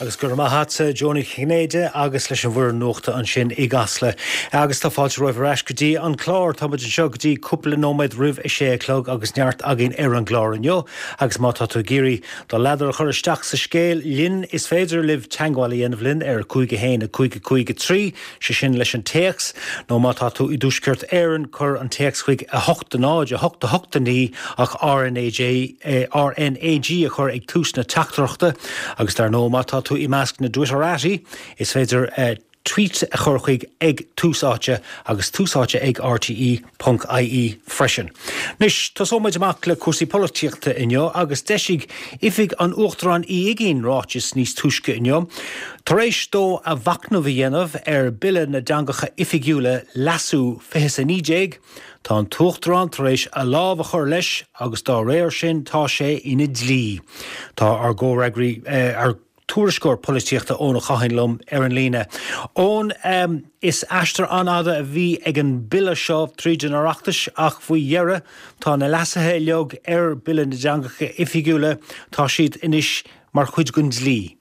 Agus go raibh maith agatsa, Joe Nic Chinnéide, agus leis an bhfoireann nuachta ansin i gCasla. Agus tá fáilte romhaibh ar ais go dtí an clár. Tá muid anseo go dtí cúpla nóiméad roimh a sé a chlog agus neart againn ar an gclár inniu. Agus má tá tú ag iarraidh do ladar a chur isteach sa scéal linn, is féidir libh teagmháil a dhéanamh linn ar 5 1 5 5 3, sé sin leis an téacs, nó má tá tú i dTuaisceart Éireann, cuir an téacs chuig 8 0 8 8 9 ach RnaG RnaG a chur ag tús na teachtaireachta. Agus dar ndóigh, má tá tú i measc na dTwitterati, is féidir tweet a chur chuig ag Tús Áite agus Tús Áite ag rte ponc ie freisin. Anois, tosóidh muid amach le cúrsaí polaitíochta inniu agus d'eisigh Oifig an Uachtaráin Uí Uigínn ráiteas níos túisce inniu tar éis dó a mhachnamh a dhéanamh ar Bille na dTeangacha Oifigiúla, Leasú, 2019. Tá an tUachtarán tar éis a lámh a chur leis agus dá réir sin tá sé ina dhlí. Tá ár gcomhfhreagraí, ár tuairisceoir polaitíochta Eoin Ó Catháin liom ar an líne. Eoin, is aistear an-fhada a bhí ag an bille seo tríd an Oireachtas ach faoi dheireadh tá na leasuithe uilig ar Bille na dTeangacha Oifigiúla, tá siad anois mar chuid den dlí.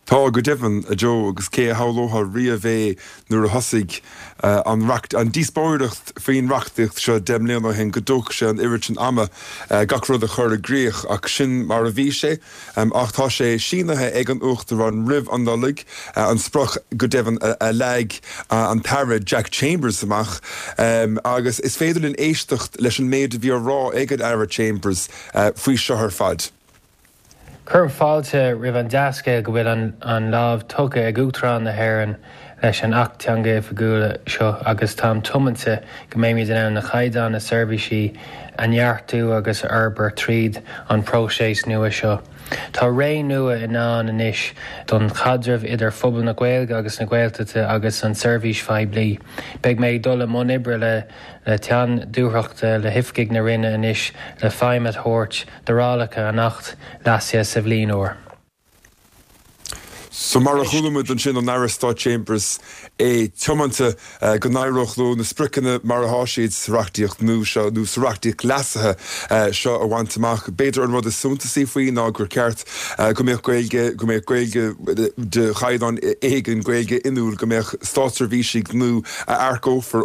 Tá, go deimhin, a Joe, agus cé a shamhlódh riamh é nuair a thosaigh an an díospóireacht faoin reachtaíocht seo 10 mbliana ó shin go dtógfadh sé an oiread sin ama gach rud a chur i gcrích, ach sin mar a bhí sé. Ach tá sé sínithe ag an Uachtarán roimh an Nollaig, an sprioc go deimhin a leag an tAire Jack Chambers amach, agus is féidir linn éisteacht leis an méid a bhí á rá ag an Aire Chambers faoi seo ar fad. Cuirim fáilte roimh an dea-scéal go bhfuil an lámh tugtha ag Uachtarán na hÉireann leis an Acht Teanga Oifigiúla seo agus táim tiomanta go mbeimid in ann na caighdeáin na seirbhísí a neartú agus a fhorbairt tríd an próiseas nua seo. Tá ré nua i ndán anois don chaidreamh idir phobal na Gaeilge agus na Gaeltachta agus an tseirbhís phoiblí. Beidh mé ag dul i mbun oibre le le teann dúthrachta le hoifigigh na Roinne anois le feidhm a thabhairt d'fhorálacha an Acht leasaithe sa bhliain úr. So mar a chuala muid ansin ón Aire Stáit Chambers, é tiomanta go n-éireodh leo na spriocanna mar atá siad sa reachtaíocht nua seo, nó sa reachtaíocht leasaithe seo a bhaint amach. B'fhéidir an rud is suntasaí faoi ná gur ceart go mbeadh Gaeilge, go mbeadh Gaeilge de chaighdeán éigin, Gaeilge inniúil, go mbeadh státseirbhísigh nua a earcófar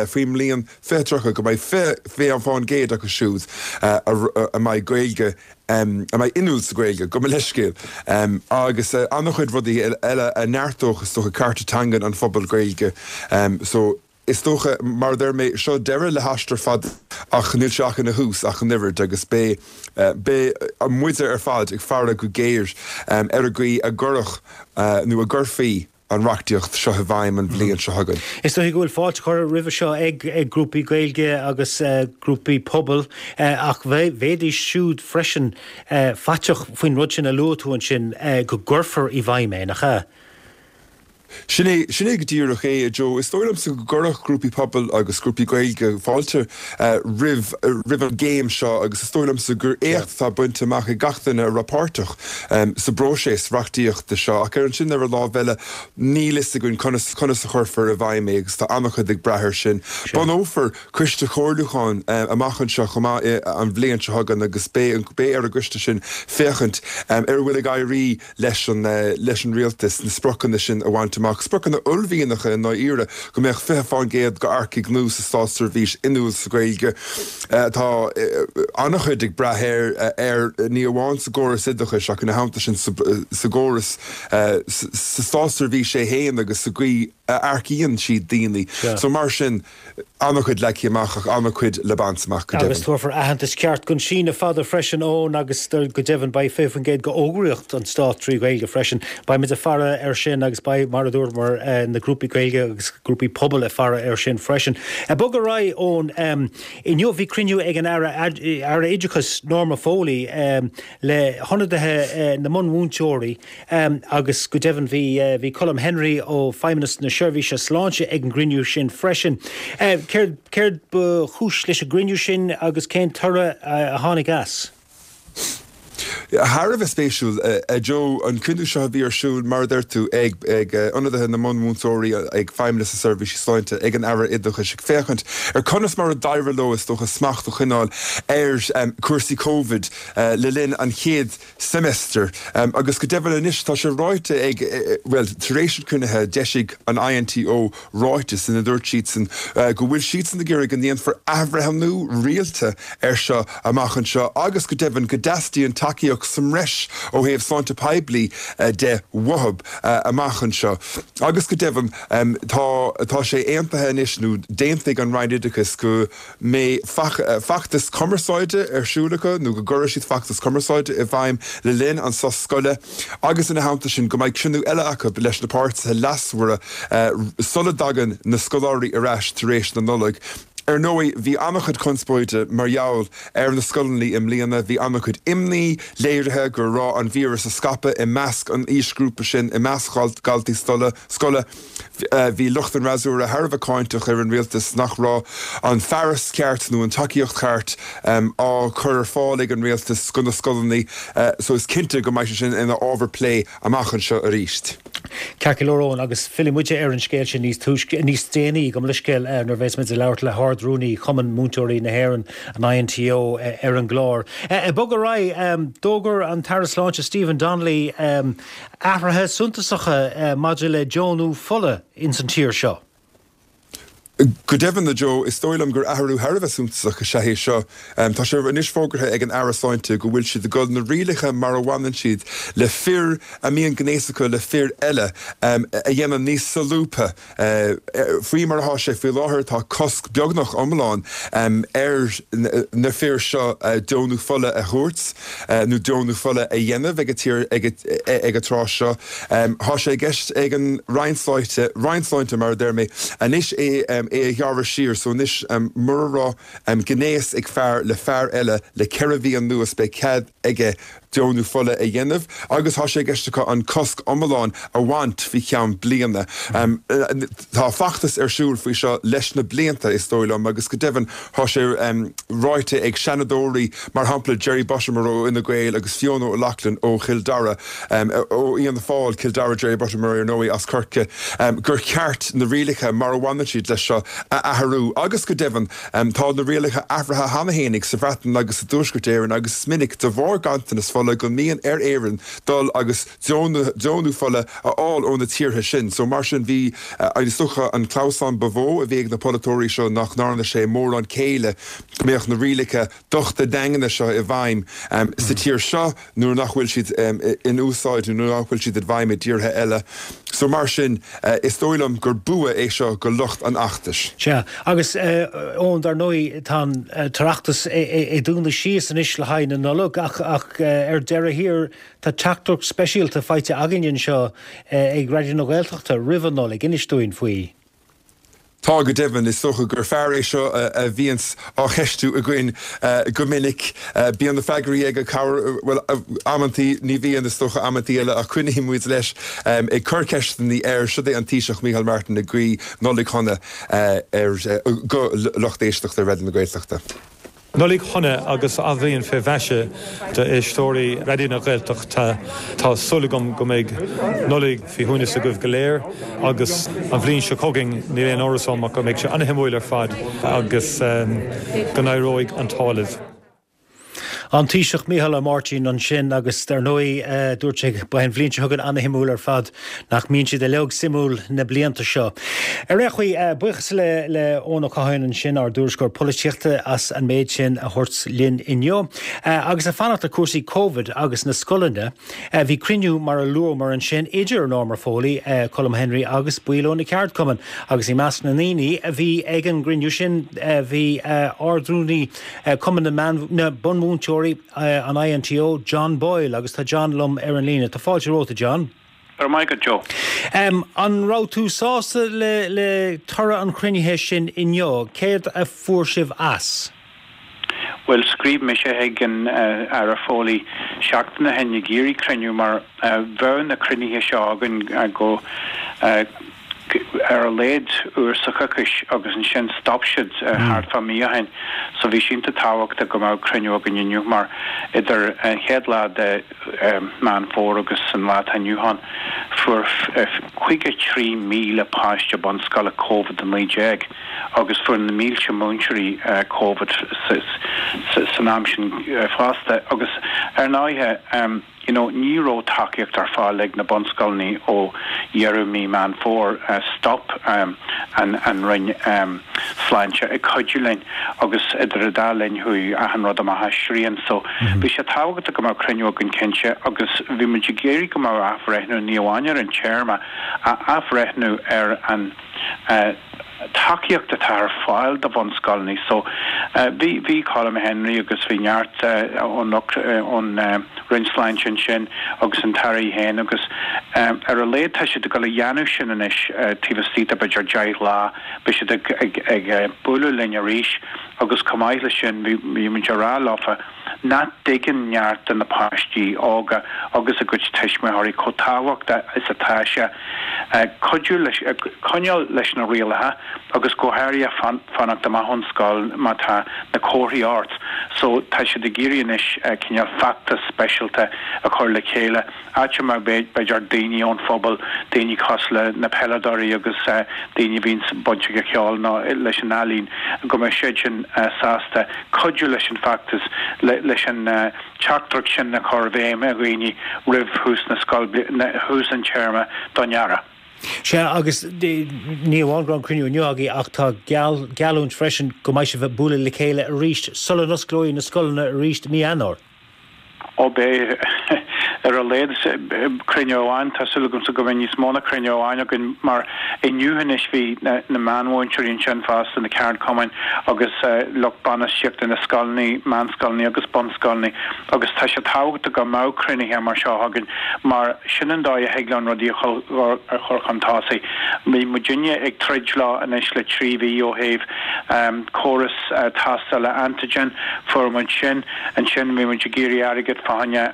faoin mbliain 2030, go mbeidh 20% acu siúd a mbeidh Gaeilge, a mbeidh inniúil sa Ghaeilge, gabh mo leithscéal, agus an-chuid rudaí eile a neartódh, is dócha, cearta teangan an phobail Ghaeilge. So, is dócha, mar a deir mé, seo deireadh le haistear fada ach níl sé ach ina thús ach an oiread agus beidh, beidh muide ar fad ag faire go géar ar an gcaoi a gcuirfeadh nó a gcuirfí an reachtaíocht seo i bhfeidhm an bhliain seo chugainn. Is dóigh go bhfuil fáilte curtha roimhe seo ag grúpaí Gaeilge agus grúpaí pobail ach bheidís siúd freisin faiteach faoin rud sin a luaigh tú ansin, go gcuirfear i bhfeidhm é, nach ea? Sin é, sin é go díreach é, a Joe. Is dóigh liomsa go gcuirfeadh grúpaí pobail agus grúpaí Gaeilge fáilte roimh, roimh an gcéim seo agus is dóigh liomsa gur éacht atá bainte amach ag gach duine a raibh páirteach sa bpróiseas reachtaíochta seo ach ar ansin ar an lámh eile níl fhios againn conas conas a chuirfear i bhfeidhm é agus tá an-chuid ag brath air sin. Bunófar coiste comhairliúcháin amach anseo chomh maith an bhliain seo chugainn agus beidh beidh ar an gcoiste sin féachaint ar a bhfuil ag éirí leis an leis an rialtas na spriocanna sin a bhaint amach, spriocanna uaillmhianacha i ndáiríre, go mbeadh 20% d'earcaigh nua sa státseirbhís inniúil sa Ghaeilge. Tá an-chuid ag brath air air ní amháin sa gcóras oideachais ach ina theannta sin sa sa gcóras sa státseirbhís é féin agus sa gcaoi a earcaíonn siad daoine. So mar sin. An-chuid leagtha amach ach an-chuid le baint amach, go Agus deimhin. tabharfar aitheantas ceart don síneadh fada freisin, Eoin, agus go deimhin beidh 20% d'fhógraíocht an Stáit trí Ghaeilge freisin. Beidh muid ag faire air sin agus beidh, mar a dúramar, na grúpaí Gaeilge agus grúpaí pobail ag faire air sin freisin. Ag bogadh ar aghaidh, Eoin, inniu bhí cruinniú ag an Aire Aire Oideachais Norma Foley le hionadaithe na mbunmhúinteoirí, Agus go deimhin bhí, bhí Colm Henry ó Feidhmeannas na Seirbhíse Sláinte ag an gcruinniú sin freisin. Céard, céard ba chúis leis an gcruinniú sin agus cén toradh a tháinig as? Thar a bheith spéisiúil, a Joe, an cruinniú seo a bhí ar siúl, mar a deir tú, ag ionadaithe na mbunmhúinteoirí, ag Feidhmeannas na Seirbhísí Sláinte, ag an Aire Oideachais, ag féachaint ar conas mar a d'éirigh leo, is dócha, smacht a choinneáil ar chúrsaí Covid le linn an chéad seimeastair. Agus go deimhin anois, tá sé ráite ag, bhuel, tar éis an chruinnithe, d'eisigh an INTO ráiteas ina dúirt siadsan go bhfuil siadsan ag iarraidh go ndéanfar athbhreithniú rialta air seo amach anseo agus go deimhin go dteastaíonn tacaíocht sa mbreis ó thaobh sláinte poiblí de uathu amach anseo. Agus go deimhin tá tá sé aontaithe anois nó d'aontaigh an Roinn Oideachais go mbeidh feachtas cumarsáide ar siúl acu nó go gcuirfidh siad feachtas cumarsáide i bhfeidhm le linn an sos scoile agus ina theannta sin go mbeidh cruinniú eile acu leis na páirtithe leasmhara sula dtagann na scoláirí ar ais tar éis na Nollag. Ar ndóigh, bhí an-chuid conspóide mar gheall ar na scoileanna i mbliana. Bhí an-chuid imní léirithe go raibh an víreas ag scaipeadh i measc an aoisghrúpa sin, i measc dhaltaí scoile. Bhí lucht an fhreasúra thar a bheith cáinteach ar an rialtas nach raibh an fearas ceart nó an tacaíocht cheart á cur ar fáil ag an rialtas go na scoileanna so is cinnte go mbeidh sé sin ina ábhar plé amach anseo arís. Ceart go leor Eoin, agus fillfidh muide ar an scéal sin níos túisce, níos déanaí, gabh mo leithscéal, nuair a bheas muid ag labhairt le hArd-Rúnaí Chumann Múinteoirí na hÉireann, an INTO, ar an gclár. Ag bogadh ar aghaidh, d'fhógair an tAire Sláinte Stephen Donnelly athruithe suntasacha maidir le deonú fola ins an tír seo. Go deimhin, a Joe, is dóigh liom gur athrú thar a bheith suntasach is ea é seo. Tá sé anois fógartha ag an Aire Sláinte go bhfuil siad ag dul na rialacha mar a bhaineann siad le fir a mbíonn gnéas acu le fir eile a dhéanamh níos solúbtha. Faoi mar atá sé faoi láthair, tá cosc beagnach iomlán ar na fir seo deonú fola a thabhairt nó deonú fola a dhéanamh ag an tráth seo. Tá sé i gceist ag an Roinn Sláinte, Roinn Sláinte mar a deir mé, anois é a ghearradh siar so anois mura raibh gnéas ag fear le fear eile le 4 mhí anuas beidh cead aige deonú fola a dhéanamh agus tá sé i gceist acu an cosc iomlán a bhaint faoi cheann bliana. Tá feachtas ar siúl faoi seo leis na blianta, is dóigh liom, agus go deimhin tá sé ráite ag seanadóirí, mar shampla Jerry Buttimer ó Fhine Gael agus Fiona O'Loughlin ó Chill Dara, ó Fhianna Fáil, Cill Dara, Jerry Buttimer ar ndóigh as Corcaigh, gur cheart na rialacha mar a bhaineann siad leis seo a athrú agus go deimhin Tá na rialacha athraithe cheana fhéinig sa Bhreatain agus i dTuaisceart Éireann agus is minic, de bharr ganntanas fola, go mbíonn ar Éirinn dul agus deonú fola a fháil ó na tíortha sin. So mar sin bhí, is dócha, an clamhsán ba mhó a bhí ag na polaiteoirí seo nach ndearna sé mórán céille go mbeadh na rialacha dochta daingne seo i bhfeidhm sa tír seo nuair nach bhfuil siad in úsáid nó nuair nach bhfuil siad i bhfeidhm i dtíortha eile. So mar sin, is dóigh liom gur bua é seo go lucht an fheachtais. Sea, agus Eoin, dar ndóigh, tá an tOireachtas ag dúnadh síos anois le haghaidh na Nollag ach ar deireadh thiar tá teachtaireacht speisialta faighte againn anseo ag Raidió na Gaeltachta roimh an Nollaig. Inis dúinn faoi. Tá, go deimhin. Is dócha gur fear é seo a bhíonns á cheistiú againn go minic. Bíonn na freagraí aige, corruair, bhuel, amantaí, ní bhíonn, is dócha, amantaí eile, ach coinníonn muid leis ag cur ceisteanna air. Siod é an Taoiseach Micheál Martin ag guí Nollaig Shona ar, go lucht éisteachta Raidió na Gaeltachta. Nollaig shona agus athbhliain fé mhaise d'éisteoirí Raidió na Gaeltachta. Tá súil agam go mbeidh Nollaig faoi shuaimhneas agaibh go léir agus an bhliain seo chugainn níl aon amhras orm ach go mbeidh sé ana-shuimiúil ar fad agus go n-éireoidh an t-ádh libh. An Taoiseach Micheál Ó Máirtín ansin agus dar ndóigh dúirt sé beidh an bhliain seo chugainn ana-shuimiúil ar fad. Nach mbíonn siad uilig suimiúil na blianta seo. Ar aon chaoi, buíochas le Eoin Ó Catháin ansin, ár dtuairisceoir polaitíochta, as an méid sin a thabhairt linn inniu. Agus ag fanacht le cúrsaí Covid agus na scoileanna, bhí cruinniú mar a luamar ansin idir Norma Foley, Colm Henry agus baill ó na ceardchumainn. Agus i measc na ndaoine a bhí ag an gcruinniú sin bhí Ard-Rúnaí Cumann na Bunmhúinteoirí, an INTO, John Boyle, agus tá John liom ar an líne. Tá fáilte romhat, a John. Go raibh maith agat, Joe. An raibh tú sásta le le toradh an chruinnithe sin inniu? Céard a fuair sibh as? Bhuel, scríobh mise chuig an Aire Foley seachtain ó shin ag iarraidh cruinniú mar bheadh na cruinnithe seo againn go. Ar a laghad uair sa choicís agus ansin stop siad thart fá mí ó shin. So bhí sé iontach tábhachtach go mbeadh cruinniú againn inniu mar idir an chéad lá de Meán Fómhair agus an lá atá inniu ann fuair 53,000 páiste bunscoile Covid-19 agus fuair na mílte múinteoirí Covid san am sin fosta agus ar ndóighe you know ní raibh tacaíocht ar fáil ag na bunscoileanna ó dheireadh mí Meán Fómhair, stop an an Roinn Sláinte ag cuidiú linn agus idir an dá linn chuaigh achan rud amach as srian so bhí sé tábhachtach go mbeadh cruinniú againn cinnte agus bhí muid ag iarraidh go mbeadh athbhreithniú ní amháin ar an téarma ach athbhreithniú ar an tacaíocht atá ar fáil do bhunscoileanna. So bhí, bhí Colm Henry agus bhí neart ón ón Roinn Sláinte ansin agus an tAire í féin agus ar a laghad tá siad ag dul a dhéanamh sin anois taobh istigh de b'fhéidir 10 lá beidh siad ag ag ag bualadh linn arís agus chomh maith leis sin bhí bhí muid ag rá leofa nach dtuigeann neart de na páistí óga agus a gcuid tuismitheoirí chomh tábhachtach is atá sé cuidiú leis, coinneáil leis na rialacha agus go háirithe fanacht amach ón scoil má tá na comharthaí ort. So tá siad ag iarraidh anois cineál feachtas speisialta a chur le chéile. áit a mbeadh b'fhéidir daoine ón phobal, daoine cosúil le na peileadóirí agus daoine a bhíonns bainteach le ceol nó leis an ealaín, go mbeadh siad sin sásta cuidiú leis an bhfeachtas, leis an teachtaireacht sin a chur i bhfeidhm ar dhaoine roimh thús na scoil, thús an téarma don earrach. Sea, agus ní amháin go raibh an cruinniú inniu agaibh ach tá geallúint freisin go mbeidh sibh ag bualadh le chéile arís sula n-osclóidh na scoileanna arís i mí Eanáir. Ó beidh, ar a laghad, cruinniú amháin. Tá súil agamsa go mbeidh níos mó ná cruinniú amháin againn mar inniu anois bhí na meánmhúinteoirí ansin fosta, na ceardchumainn agus lucht bainistíochta na scoileanna, meánscoileanna agus bunscoileanna agus tá sé tábhachtach go mbeadh cruinnithe mar seo againn mar sin an dóigh a thig linn rudaí a chur chun tosaigh. Bhí muidinne ag troid leo anois le 3 mhí ó thaobh córas tástála antigen, fuair muid sin. Ansin bhí muid ag iarraidh airgead fá choinne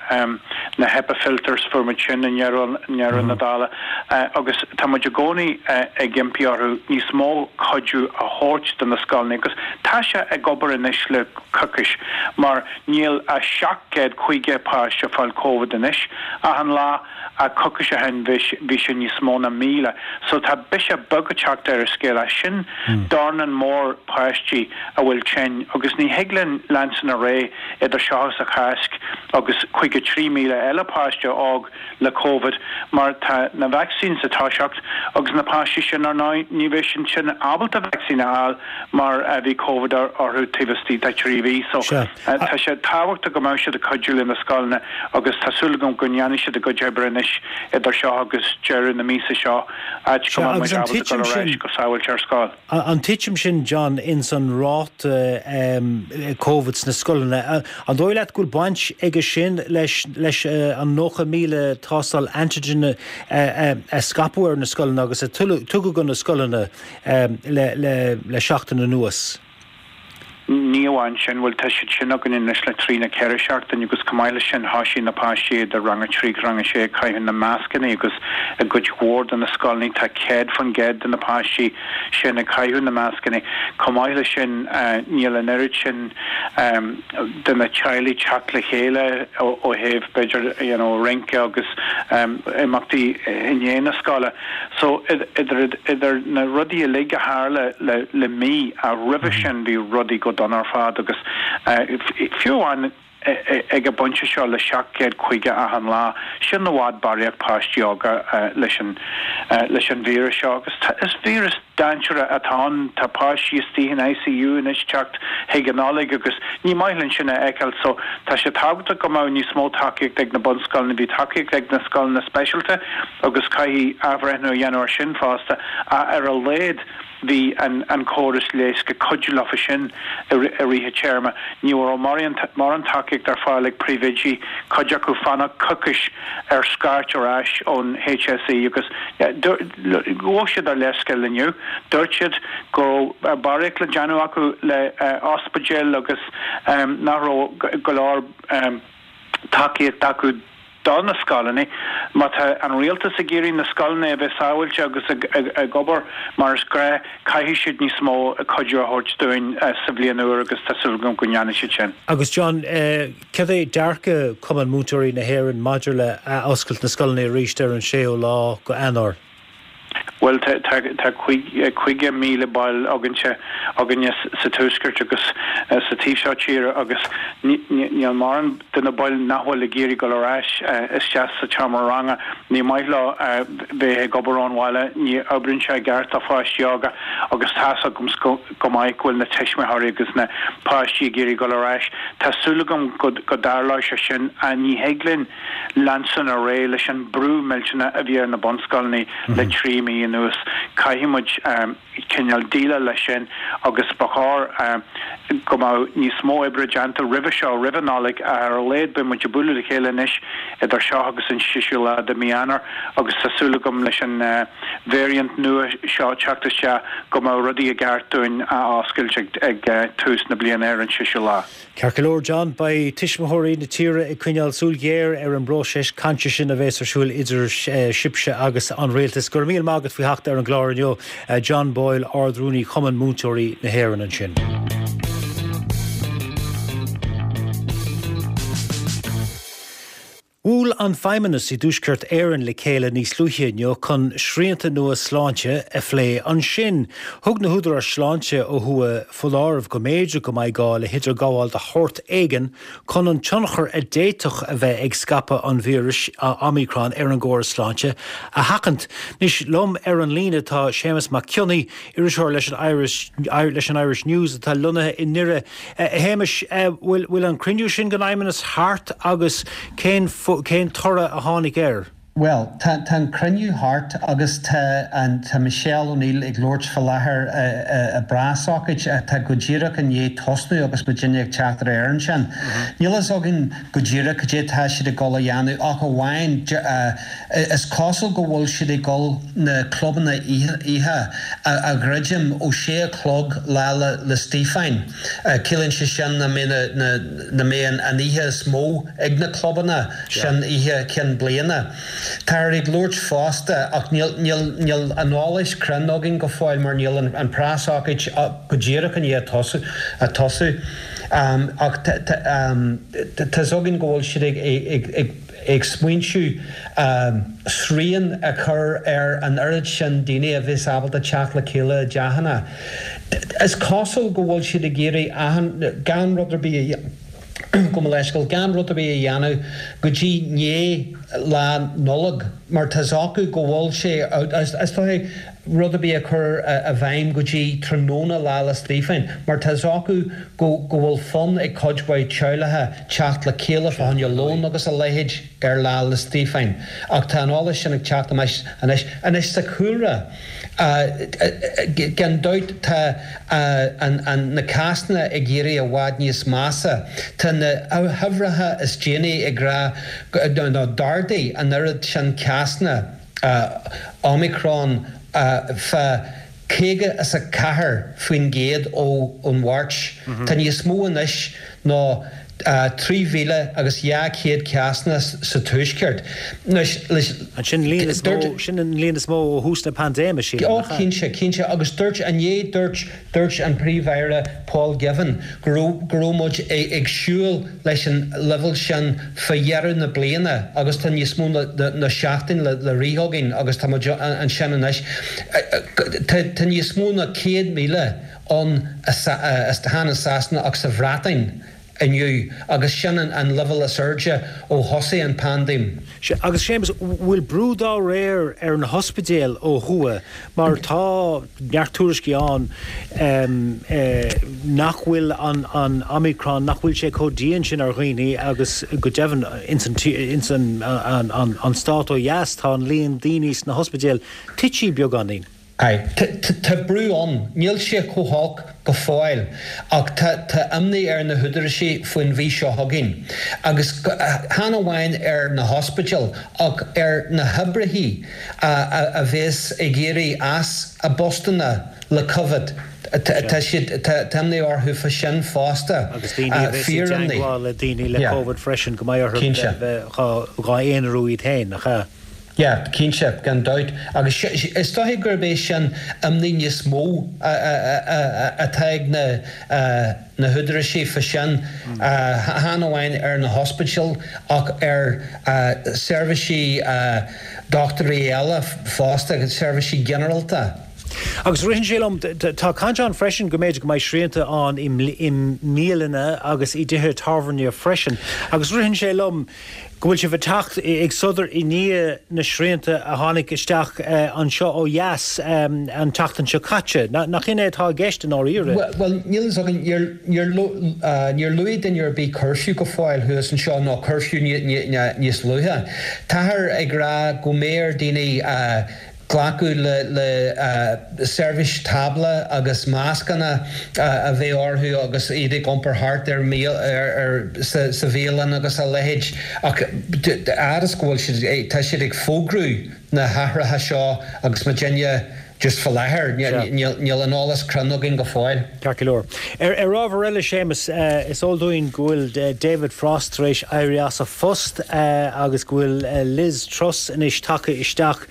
na HEPA filters, fuair muid sin i ndeireadh na dála. Agus tá muid i gcónaí ag impí orthu níos mó cuidiú a thabhairt do na scoileanna agus tá sé ag obair anois le coicís mar níl ach 750 páiste ag fáil Covid anois achan lá. Ach coicís ó shin bhí sé níos mó ná 1,000. So tá biseach beag ag teacht ar an scéal ach sin dornán mór páistí a bhfuil tinn agus ní thig linn leanstan ar aghaidh idir seo agus an Cháisc agus 53,000 eile páiste óg le Covid mar tá na vaccines ag toiseacht agus na páistí sin ar ndóigh ní bheidh siad sin ábalta vaccine a fháil mar bhí Covid orthu taobh istigh de thrí mhí. So. Tá sé tábhachtach go mbeadh siad ag cuidiú le na scoileanna agus tá súil agam go ndéanfaidh siad a gcuid oibre anois idir seo agus deireadh na míosa seo, áit go mbeidh muid ábalta dul ar ais go sábháilte ar scoil. An titim sin, John, ins an ráta Covid sna scoileanna, an dóigh leat go bhfuil baint aige sin leis leis an 90,000 tástáil antigen a scaipeadh ar na scoileanna agus a tugadh do na scoileanna le seachtain anuas? Ní amháin sin, bhuel tá siad sin againn anois le trí nó ceithre seachtain agus chomh maith leis sin thoisigh na páistí idir rang a trí agus rang a sé ag caitheamh na mascanna agus i gcuid mhór de na scoileanna tá 100% de na páistí sin ag caitheamh na mascanna. Chomh maith leis sin níl an oiread sin de na teaghlaigh teacht le chéile ó thaobh b'fhéidir you know rince agus imeachtaí i ndiaidh na scoile. So, idir, idir na rudaí uilig a tharla le, le mí, ach roimhe sin bhí rudaí go dona ar fad agus fiú amháin ag an bpointe seo le 750 achan lá, sin i bhfad barraíocht páistí óga leis an, leis an víreas seo agus tá, is víreas dainséarach atá ann, tá páistí istigh in ICU anois teacht chuig an Nollaig agus ní maith linn sin a fheiceáil so tá sé tábhachtach go mbeadh níos mó tacaíocht ag na bunscoileanna, bhí tacaíocht ag na scoileanna speisialta agus caithfidh athbhreithniú a dhéanamh ar sin fosta ach ar a laghad bhí an córas leighis ag cuidiú leofa sin i rith an téarma. Ní raibh mórán tacaíocht ar fáil ag príomhoidí, cuid acu fanacht coicís ar scairt ar ais ón HSE agus ghabh siad ár leithscéal inniu. Dúirt siad go raibh barraíocht le déanamh acu le ospidéil agus nach raibh go leor tacaíocht acu. do na scoileanna. Má tá an rialtas ag iarraidh na scoileanna a bheith sábháilte agus ag obair mar is gnáth, caithfidh siad níos mó cuidiú a thabhairt dúinn sa bhliain úr agus tá súil agam go ndéanfaidh siad sin. Agus John, céard é dearcadh Cumann Múinteoirí na hÉireann maidir le athoscailt na scoileanna arís ar an séú lá go Eanáir? Bhuel, tá 50,000 ball againne, againne sa Tuaisceart agus sa taobh seo tíre agus níl mórán de na baill nach bhfuil ag iarraidh dul ar ais isteach sa tseomra ranga. Ní maith leo bheith ag obair ón bhaile, ní oibríonn sé i gceart do pháistí óga agus tá's agam go maith go bhfuil na tuismitheoirí agus na páistí ag iarraidh dul ar ais. Tá súil agam go dtarlóidh sé sin. Ní thig linn. leanstan ar aghaidh leis an brú millteanach a bhí ar na bunscoileanna le 3 mí anuas. Caithfidh muid cineál déileáil leis sin agus ba chóir go mbeadh níos mó oibre déanta roimhe seo, roimh an Nollaig, ach ar a laghad beidh muid ag bualadh le chéile anois idir seo agus an 6ú lá de mhí Eanáir agus tá súil agam leis an variant nua seo teacht isteach go mbeadh rudaí i gceart dúinn a oscailt ag tús na bliana ar an 6ú lá. Ceart go leor, John, beidh tuismitheoirí na tíre ag coinneáil súil ghéar ar an bpróiseas cainte sin a bheas ar siúl idir sibhse agus an rialtas. Go raibh míle maith agat faoi theacht ar an gclár inniu, John Boyle, Ard-Rúnaí Chumann Múinteoirí na hÉireann ansin. Bhuail an Feidhmeannas i dTuaisceart Éireann le chéile níos luaithe inniu chun srianta nua sláinte a phlé ansin. Thug na húdaráis sláinte ó thuaidh foláireamh go mb'fhéidir go mbeidh gá le hidirghabháil de shórt éigin chun an tionchar a d'fhéadfadh a bheith ag scaipeadh an víris Omicron ar an gcóras sláinte a sheachaint. Anois liom ar an líne tá Séamus Mac Cionnaith, iriseoir leis an Irish leis an Irish News atá lonnaithe i nDoire. A Shéamais, bhfuil an cruinniú sin den Fheidhmeannas thart agus cén cén toradh a tháinig air? Bhuel, tá tá an cruinniú thart agus tá an tá Michelle O'Neill ag labhairt fá láthair i bpreasócáid atá go díreach i ndiaidh tosnú agus muidinne ag teacht ar aer ansin. Níl fhios againn go díreach cad é atá siad ag dul a dhéanamh ach amháin Is cosúil go bhfuil siad ag dul na clubanna oíche a dhruidim ó sé a chlog Lá 'le Stíofáin. Ciallaíonn sé sin nach mbeidh an oíche is mó ag na clubanna sin, oíche Chinn Bliana. Táthar ag labhairt fosta, ach níl an eolas cruinn againn go fóill mar níl an preasócáid go díreach i ndiaidh tosú, ach tá's againn go bhfuil siad ag ag smaointiú srian a chur ar an oiread sin daoine a bheas ábalta teacht le chéile i dteachanna. Is cosúil go bhfuil siad ag iarraidh achan, gan rud ar bith a, gabh mo leithscéal, gan rud ar bith a dhéanamh go dtí ndiaidh Lá Nollag mar tá's acu go bhfuil sé, is dóigh, rud ar bith a chur i bhfeidhm go dtí tráthnóna Lá 'le Stíofáin mar tá's acu go go bhfuil fonn ag cuid mhaith teaghlacha teacht le chéile fá choinne lón agus a leithéid ar Lá 'le Stíofáin. Ach tá an eolas sin ag teacht amach anois. Anois sa chúlra, gan dabht tá an na cásanna ag éirí i bhfad níos measa. Tá na huimhreacha is déanaí ag rá nó d'ardaigh an oiread sin cásanna, Omicron fá 54% ón Mháirt. Tá níos mó anois ná 3,000 agus 200 cásanna sa Tuaisceart. Sin an líon is mó ó thús na paindéime, sílim, nach ea? Ó, cinnte, cinnte. Agus dúirt, inné dúirt, dúirt an Príomh-Aire Paul Givan go raibh, go raibh muid ag siúl, leis an leibhéal sin fá dheireadh na bliana agus tá níos mó ná seachtain le rith againn agus tá muid ansin anois. Tá níos mó ná 100,000 ann chan i Sasana ach sa Bhreatain inniu agus sin an leibhéal is airde ó thosaigh an phaindéim. Sea, agus Séamus, bhfuil brú dá réir ar na hospidéil ó thuaidh mar tá neart tuairiscí ann nach bhfuil an Omicron, nach bhfuil sé chomh dian sin ar dhaoine agus go deimhin ins an stát ó dheas tá an líon daoine sna hospidéil tite beagáinín. Aye. Tá brú ann. Níl sé chomh holc go fóill ach tá imní ar na húdaráis faoin mhí seo chugainn. Agus chan amháin ar na hospidéil ach ar na hoibrithe a bheas ag éirí as a bpostanna le Covid. Tá siad, tá imní orthu fá sin fosta. Agus daoine a bheas i dteagmháil le daoine le Covid freisin, go mbeidh orthu bheith dhá aonarú iad féin, nach ea? Yeah, cinnte, gan dabht. Agus is dóiche gurb é sin imní níos mó atá ag na na húdaráisí fá sin, chan amháin ar na hospidéil ach ar seirbhísí dochtúirí eile fosta, seirbhísí ginearálta. Agus ritheann sé liom, tá caint ann freisin go mb'fhéidir go mbeidh srianta ann i mbialanna agus i dtithe tábhairne freisin. Agus ritheann sé liom go bhfuil sibh ag teacht ag sodar i ndiaidh na srianta a tháinig isteach anseo ó dheas an tseachtain seo caite. Nach in é atá i gceist i ndáiríre? Bhuel, níl fhios againn. Níor luaigh duine ar bith curfew go fóill thuas anseo, nó curfew níos luaithe. Táthar ag rá go mbeidh ar daoine glacadh le seirbhís tábla agus mascanna a bheith orthu agus iad ag iompar thart ar sa bhialann agus a leithéid ach fhad is go bhfuil siad, tá siad ag fógrú na hathruithe seo agus muidinne just fá láthair, níl an eolas cruinn againn go fóill. Ceart go leor. Ar ábhar eile, Séamus, is eol dúinn go bhfuil David Frost tar éis éirí as a phost agus go bhfuil Liz Truss anois tagtha isteach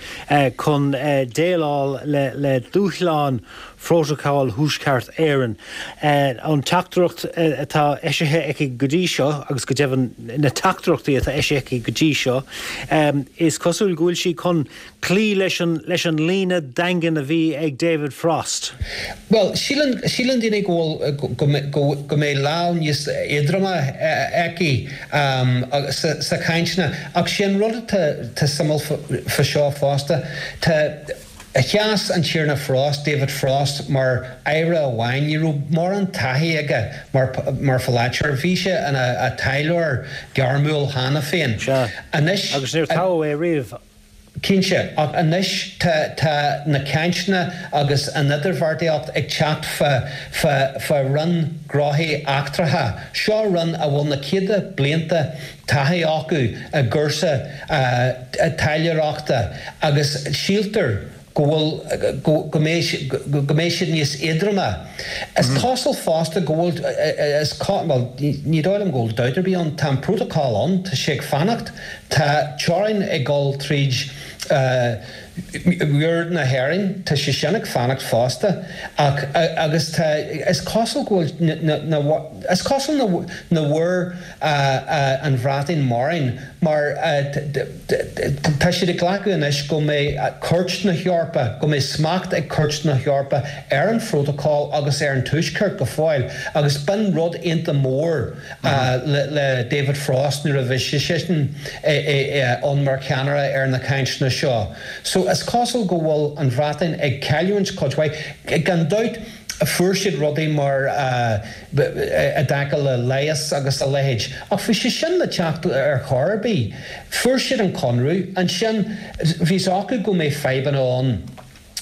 chun déileáil le dúshláin Phrótacal Thuaisceart Éireann. An teachtaireacht atá eisithe aici go dtí seo, agus go deimhin na teachtaireachtaí atá eisithe aici go dtí seo, is cosúil go bhfuil sí chun cloí leis an leis an líne daingean a bhí ag David Frost. Bhuel, síleann, síleann daoine go bhfuil, go, go, go mbeidh lámh níos éadroime aici sa, sa chainteanna. Ach sé an rud atá, tá suimiúil fá seo fosta, tá, sheas an Tiarna Frost, David Frost, mar aire amháin, ní raibh mórán taithí aige mar, mar pholaiteoir. Bhí sé ina taidhleoir gairmiúil cheana féin. Sea. Anois. Agus níor toghadh é riamh. Cinnte, ach anois tá tá na cainteanna agus an idirbheartaíocht ag teacht fá fá fá Roinn Gnóthaí Eachtracha. Seo roinn a bhfuil na céadta blianta taithí acu i gcúrsa taidhleoireachta agus síltear go bhfuil, go, go mbeidh, go mbeidh siad níos éadroime. Is cosúil fosta go bhfuil, is, bhuel, ní dóigh liom go bhfuil dabht ar bith ann, tá an prótacal ann, tá sé ag fanacht, tá teorainn ag dul tríd mhuir na hÉireann, tá sé sin ag fanacht fosta ach, agus tá, is cosúil go bhfuil na, na, is cosúil nach bhfuair an Bhreatain mórán mar tá siad ag glacadh anois go mbeidh Cúirt na hEorpa, go mbeidh smacht ag Cúirt na hEorpa ar an phrótacal agus ar an Tuaisceart go fóill agus b'in rud iontach mór le David Frost nuair a bhí seisean ann mar cheannaire ar na cainteanna seo. So is cosúil go bhfuil an Bhreatain ag cailliúint cuid mhaith. Gan dabht fuair siad rudaí mar i dtaca le leigheas agus a leithéid. Ach bhí sé sin le teacht ar chor ar bith. Fuair siad an conradh, ansin bhí 's acu go mbeidh fadhbanna ann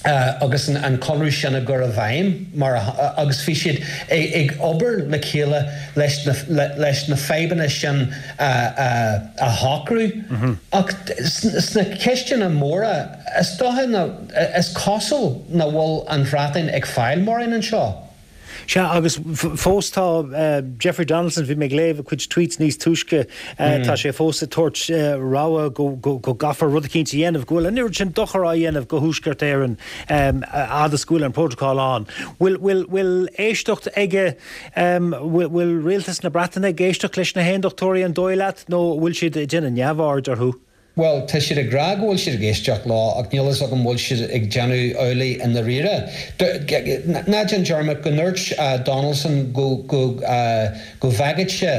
agus an conradh sin á gcur i bhfeidhm mar agus bhí siad ag obair le chéile leis na leis na fadhbanna sin a shocrú. Ach sna ceisteanna móra is dócha ná is cosúil nach bhfuil an Bhreatain ag fáil mórán anseo. Sea, agus fós tá Jeffrey Donaldson, bhí mé ag léamh a chuid tweets níos túisce, tá sé fós ag tabhairt rabhadh go gcaithfear rud eicínt a dhéanamh, go bhfuil an oiread sin dochar á dhéanamh go Thuaisceart Éireann fhad is go bhfuil an prótacál ann. Bhfuil, bhfuil éisteacht aige, bhfuil rialtas na Breataine ag éisteacht leis na hAondachtóirí an dóigh leat nó bhfuil siad ag déanamh neamhaird orthu? Bhuel, tá siad ag rá go bhfuil siad ag éisteacht leo ach níl fhios agam bhfuil siad ag déanamh amhlaidh i ndáiríre. Ná déan dearmad go ndúirt Donaldson go go go bhfágfadh sé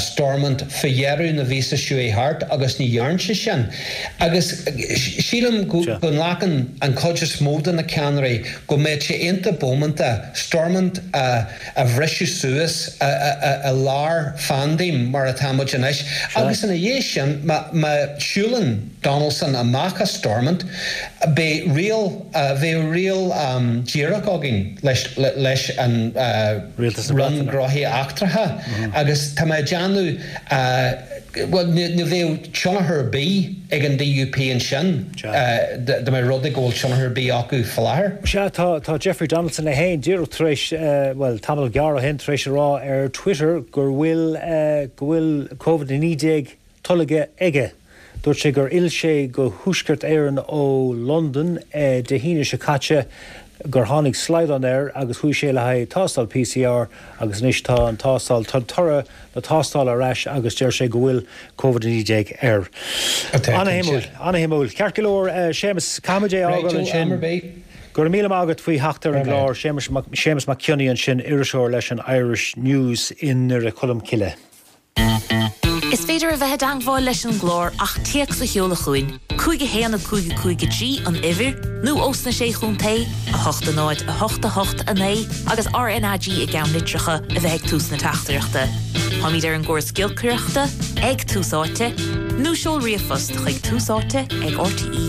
Stormont fá dheireadh na mhíosa seo chuaigh thart agus ní dhearn sé sin. Agus sílim go nglacann an chuid is mó de na ceannairí go mbeadh sé iontach bómánta Stormont a a bhriseadh suas i lár phaindéim mar atá muid anois agus ina dhiaidh sin má shiúlann Donaldson amach as Stormont beidh riail bheadh riail díreach againn leis leis an Roinn Gnóthaí Eachtracha agus tá mé ag déanamh. Bhuel, ní bheadh tionchar ar bith ag an DUP ansin dá mba rud é go bhfuil tionchar ar bith acu faoi láthair. Sea, tá, tá Jeffrey Donaldson é féin díreach tar éis, bhuel, tamall gearr ó shin, tar éis a rá ar Twitter gur bhfuil, go bhfuil Covid-19 tolgtha aige. Dúirt sé gur fhill sé go Thuaisceart Éireann ó Londain Dé hAoine seo caite, gur tháinig slaghdán air agus chuaigh sé le haghaidh tástáil PCR agus anois tá an tástáil, tá toradh na tástála ar ais agus deir sé go bhfuil Covid-19 air. Ana-shuimiúil, ana-shuimiúil. Ceart go leor, Séamus, caithfimid é a fhágáil ansin. Go raibh míle maith agat faoi theacht ar an gclár. Séamus Mac Cionnaith ansin, iriseoir leis an Irish News i nDoire Cholm Cille. Is féidir a bheith i dteangmháil leis an gclár ach téacs a sheoladh chugainn, 5 1 5 5 3 an uimhir, nó ós na Sé Chontae, 8 0 8 8 9 agus RNAG i gceannlitreacha a bheith ag tús na teachtaireachta. Táimid ar an gcóras giolcaireachta, ag Tús Áite, nó seol ríomhphost chuig túsáite ag rte.ie.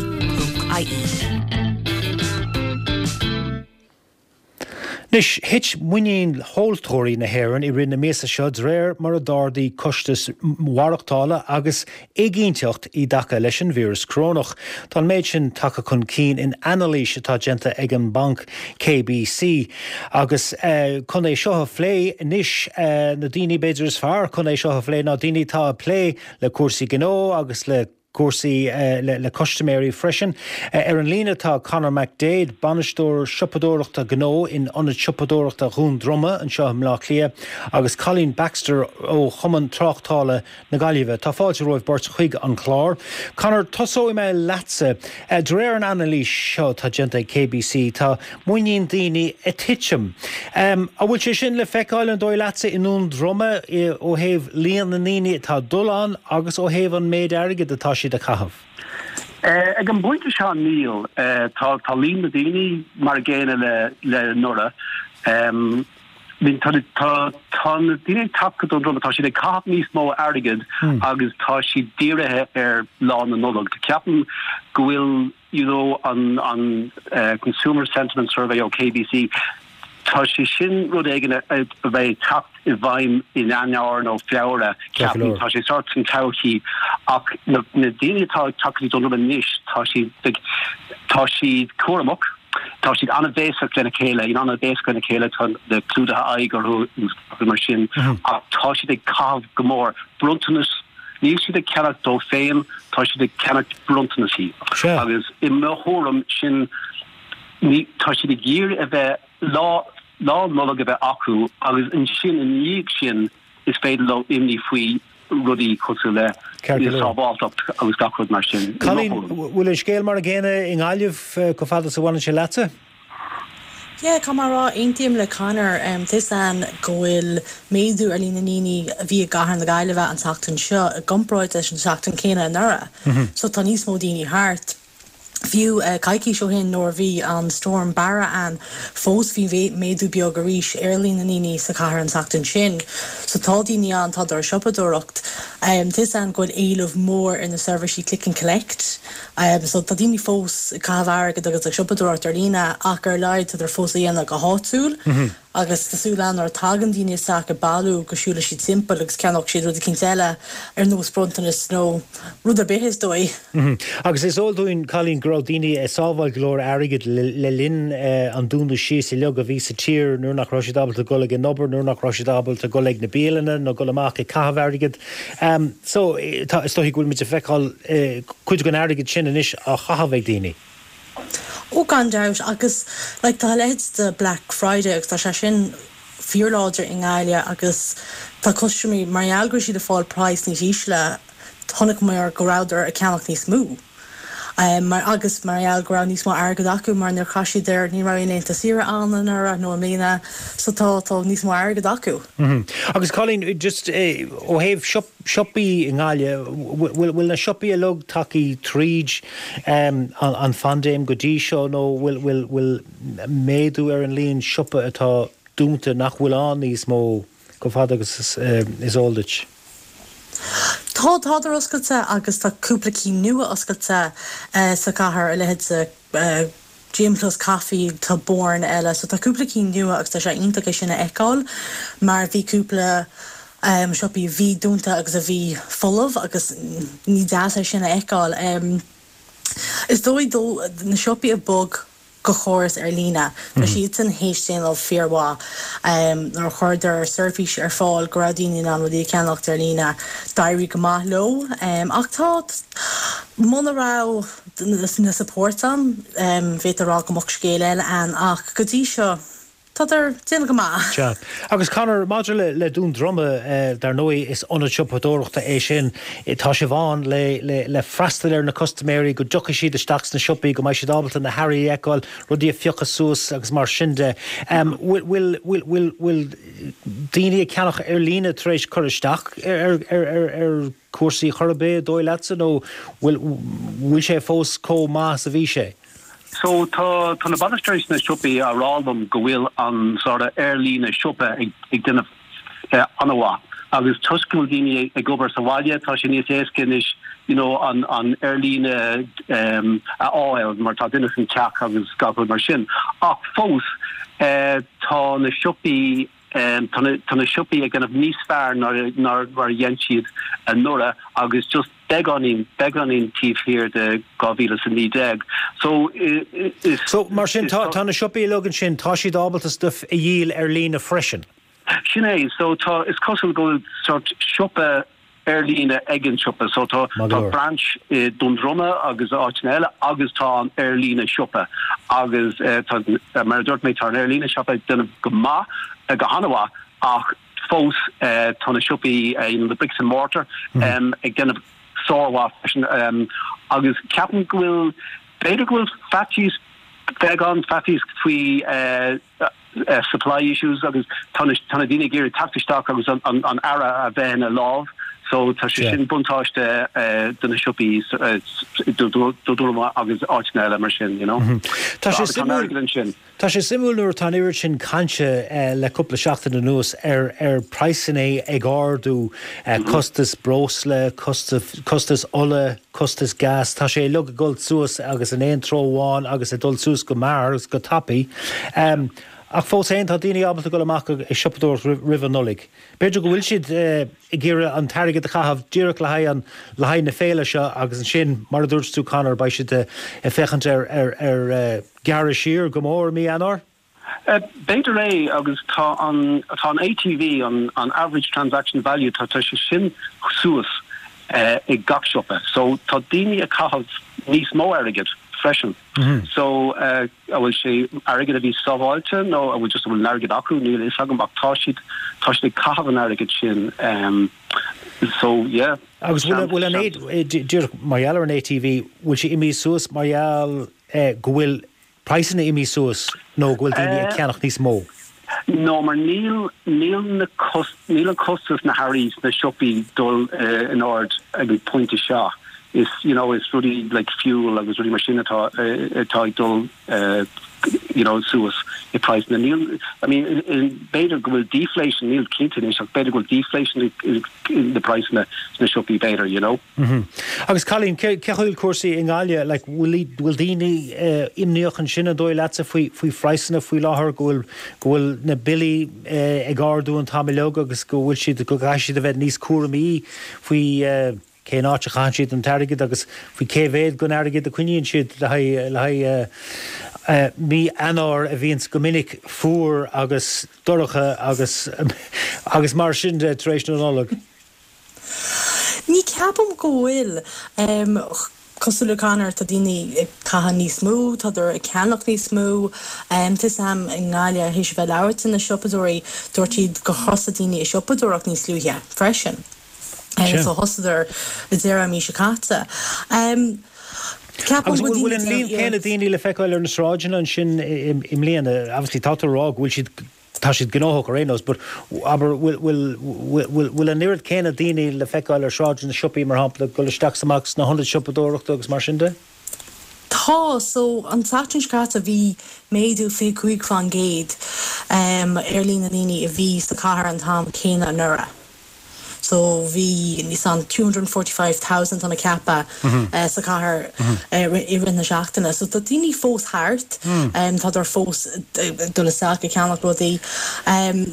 Anois, thit muinín thomhaltóirí na hÉireann i rith na míosa seo de réir mar a d'ardaigh costais mhaireachtála agus éiginnteacht i dtaca leis an víreas corónach. Tá an méid sin tagtha chun cinn in anailís atá déanta ag an mbanc KBC. Agus chun é seo a phlé anois, na daoine b'fhéidir is fearr chun é seo a phlé ná daoine atá ag plé le cúrsaí gnó agus le cúrsaí le custaiméirí freisin. Ar an líne tá Conor McDaid, Bainisteoir Siopadóireachta Gnó in Ionad Siopadóireachta Dhún Droma anseo i mBleá Cliath agus Colleen Baxter ó Chumann Tráchtála na Gaillimhe. Tá fáilte romhaibh beirt chuig an chlár. Conor, tosóidh mé leatsa. De réir an anailís seo atá déanta ag KBC, tá muinín daoine ag titim. An bhfuil sé sin le feiceáil, an dóigh leatsa, i nDún Droma ó thaobh líon na ndaoine atá ag dul ann agus ó thaobh an méid airgid atá siad a chaitheamh? Ag an bpointe seo níl. Tá líon na daoine mar a gcéanna le anuraidh. Tá na daoine ag teacht go Dún Droma, tá siad ag caitheamh níos mó airgid agus tá siad dírithe ar Lá na Nollag. Ceapaim go bhfuil you know an an Consumer Sentiment Survey ó KBC, tá sé sin rud éigin a bheidh ag teacht i bhfeidhm in Eanáir nó Feabhra, ceapaim, tá sé sórt san todhchaí ach na daoine atá ag teacht go dtí Dún Droma anois, tá siad like tá siad cúramach, tá siad an-bhéasach lena chéile, you know an-bhéasach lena chéile, tá na clúdaithe aghaidh orthu agus mar sin ach tá siad ag caitheamh go mór, bronntanas Níl siad ag ceannacht dóibh féin, tá siad ag ceannacht bronntanaisí. Agus i mo thuairim, sin, ní, tá siad ag iarraidh a bheith, lá, Lá Nollag a bheith acu agus ansin i ndiaidh sin is féidir leo imní faoi rudaí cosúil le sábháilteacht agus gach rud mar sin. Colleen, bhfuil an scéal mar an gcéanna i nGaillimh chomh fada is a bhaineann sé leatsa? Yeah, caithfidh mé a rá, aontaím le Conor. Tá 'fhios a'inn go bhfuil méadú ar líon na ndaoine a bhí i gcathair na Gaillimhe an tseachtain seo i gcomparáid leis an tseachtain céanna anuraidh. So tá níos mó daoine thart. Fiú coicís ó shin nuair a bhí an Storm Barra ann, fós bhí méadú beag arís ar líon na ndaoine sa chathair an tseachtain sin. So tá daoine ann, tá ag siopadóireacht. Tá 'fhios a'inn go bhfuil éileamh mór ar na seirbhísí click and collect. So tá daoine fós ag caitheamh airgid agus ag siopadóireacht ar líne ach ar a laghad tádar fós á dhéanamh go háitiúil agus tá súil ann nuair a tagann daoine isteach ag bailiú go siúlfaidh siad timpeall agus ceannóidh siad rud eicínt eile ar nós bronntanas nó rud ar bith is dóigh. Agus is eol dúinn, Colleen, go raibh daoine ag sábháil go leor airgid le linn an dúnadh síos uilig a bhí sa tír nuair nach raibh siad ábalta dul ag an obair, nuair nach raibh siad ábalta dul ag na bialanna nó dul amach ag caitheamh airgid. So, tá, is dóichí go bhfuil muid ag feiceáil cuid den airgead sin anois á chaitheamh ag daoine. Ó, gan dabht, agus like tá a leithéid de Black Friday agus tá sé sin fíorláidir i nGaillimh agus tá custaiméirí, mar gheall go raibh siad ag fáil praghas níos ísle, chonaiceamar go rabhadar ag ceannach níos mó. Mar, agus mar gheall go raibh níos mó airgead acu mar níor chaith siad ar, ní raibh aon laethanta saoire ann anuraidh nó i mbliana so tá, tá níos mó airgead acu. Agus Colleen, just ó thaobh siopaí i nGaillimh, bhfuil, bhfuil na siopaí uilig tagtha tríd an phaindéim go dtí seo nó bhfuil, bhfuil, bhfuil méadú ar an líon siopa atá dúnta nach bhfuil ann níos mó? Chomh fada agus is eol duit. Tá, tádar oscailte agus tá cúpla cinn nua oscailte sa chathair, a leithéid de Gym Plus Coffee, tá Born eile, so tá cúpla cinn nua agus tá sé iontach é sin a fheiceáil mar bhí cúpla. siopaí a bhí dúnta agus a bhí folamh agus ní deas é sin a fheiceáil. Is dóigh dó na siopaí a bhog go chóras ar líne, tá siadsan théis déanamh fíormhaith. Nuair a chuireadar seirbhís ar fáil go raibh daoine in ann rudaí a cheannacht ar líne, d'éirigh go maith leo. Ach tá, muna raibh na supports ann, bhféadfá a rá go mbeadh scéal eile ann ach go dtí seo, Tádar ag déanamh go maith. Sea. Agus Conor, maidir le Dún Droma, dar ndóigh is ionad siopadóireachta é sin. Tá sibh ann le le freastal ar na custaiméirí, go dtiocfaidh siad isteach sna siopaí, go mbeidh siad ábalta na hearraí a fheiceáil, rudaí a phiocadh suas agus mar sin de. Bhfuil bhfuil bhfuil daoine ag ceannach ar líne tar éis cur isteach ar ar ar cúrsaí chor ar bith, an dóigh leatsa, nó bhfuil bhfuil sé fós chomh maith is a bhí sé? So tá tá na bainisteoirí sna siopaí á rá liom go bhfuil an sort of ar-líne siopa ag ag déanamh an-mhaith agus toisc go bhfuil daoine ag obair sa bhaile tá sé níos éasca anois you know an an ar-líne a fháil mar tá duine san teach agus gach rud mar sin. Ach fós tá na siopaí tá na tá na siopaí ag déanamh níos fearr ná ná mar a dhein siad anuraidh agus just beagáinín, beagáinín taobh thiar de 2019. So, is. So, mar sin, tá, tá na siopaí uilig ansin, tá siad ábalta stuif a dhíol ar líne freisin? Sin é. So, tá, is cosúil go bhfuil sort siopa ar líne ag an siopa. So, tá, tá branch i Dún Droma agus áiteanna eile agus tá an ar líne siopa agus tá, mar a dúirt mé, tá an ar líne siopa ag déanamh go maith, go han-mhaith ach, Fós tá na siopaí, you know, the bricks and mortar, ag déanamh sármhaith freisin agus ceapaim go bhfuil, b'fhéidir go bhfuil faitíos, beagán faitíos faoi supply issues agus tá na, tá na daoine ag iarraidh teacht isteach agus an earra a bheith ina lámh so tá sé sin buntáiste do na siopaí Dún Droma agus áiteanna eile mar sin, you know. Tá sé suimiúil. Tá sé suimiúil nuair atá an oiread sin cainte le cúpla seachtain anuas ar ar praghsanna ag ardú, costas breosla, costas ola, costas gas, tá sé uilig ag dul suas agus in aon treo amháin agus ag dul suas go mear agus go tapaidh. Ach fós féin tá daoine ábalta dul amach ag siopadóireacht roimh an Nollaig. B'fhéidir go bhfuil siad ag iarraidh an t-airgead a chaitheamh díreach le haghaidh an le haghaidh na féile seo agus ansin, mar a dúirt tú Conor, beidh siad ag féachaint ar ar ar gearradh siar go mór i mí Eanáir? B'fhéidir é agus tá an tá an ATV, an an average transaction value, tá tá sé sin suas i gach siopa. So tá daoine ag caitheamh níos mó airgid freisin. So an bhfuil sé airgead a bhí sábháilte nó an bhfuil just an bhfuil an airgead acu, níl a fhios agam ach tá siad tá siad ag caitheamh an airgid sin. So yeah. Agus bhfuil bhfuil an díreach mar gheall ar an ATV, bhfuil sé imithe suas mar gheall go bhfuil praghsanna imithe suas nó go bhfuil daoine ag ceannach níos mó? No, mar níl, níl na cos, níl an costas na hearraí sna siopaí dul in ard ag an pointe seo. Is, you know, is rudaí like fuel agus rudaí mar sin atá, atá ag dul, you know, suas i praghsanna. Níl, I mean, b'fhéidir go bhfuil deflation, níl cinnte anois ach b'fhéidir go bhfuil deflation i na praghsanna sna siopaí b'fhéidir, you know. Agus Colleen, cé chaoi bhfuil cúrsaí i nGaillimh? Like, bhfuil, bhfuil daoine imníoch ansin an dóigh leatsa faoi, faoi phraghsanna faoi láthair, go bhfuil, go bhfuil na billí ag ardú an t-am uilig agus go bhfuil siad, go gcaithfidh siad a bheith níos cúramaí faoi cén áit a chaitheann siad an t-airgead agus faoi cé mhéad den airgead a coinníonn siad le haghaidh, le haghaidh mí Eanáir a bhíonns go minic fuar agus dorcha agus, agus mar sin de tar éis na Nollag. Ní ceapaim go bhfuil. Cosúil le Conor, tá daoine ag caitheamh níos mó, tádar ag ceannach níos mó. Tá 'fhios a'm i nGaillimh, théis a bheith ag labhairt le na siopadóirí, dúirt siad gur thosaigh daoine ag siopadóireacht níos luaithe freisin. So thosaíodar i deireadh an mhí seo caite. Ceapaim go bhfuil bhfuil daoine an ag líon déanamh céanna iarracht. daoine le feiceáil ar na sráideanna ansin i mbliana? Obviously tá tú ag rá go bhfuil siad Tá siad gnóthach ar aon nós, but abair, bhfuil, bhfuil, bhfuil, bhfuil an oiread céanna daoine le feiceáil ar shráideanna na siopaí, mar shampla, ag dul isteach is amach sna hionaid siopadóireachta agus mar sin de? Tá, so an tseachtain seo caite bhí méadú 25% ar líon na ndaoine a bhí sa chathair an t-am céanna anuraidh. So bhí níos an 245,000 tá mé ag ceapadh sa chathair i rith na seachtaine. So tá daoine fós thart, tádar fós ag dul isteach ag ceannach rudaí.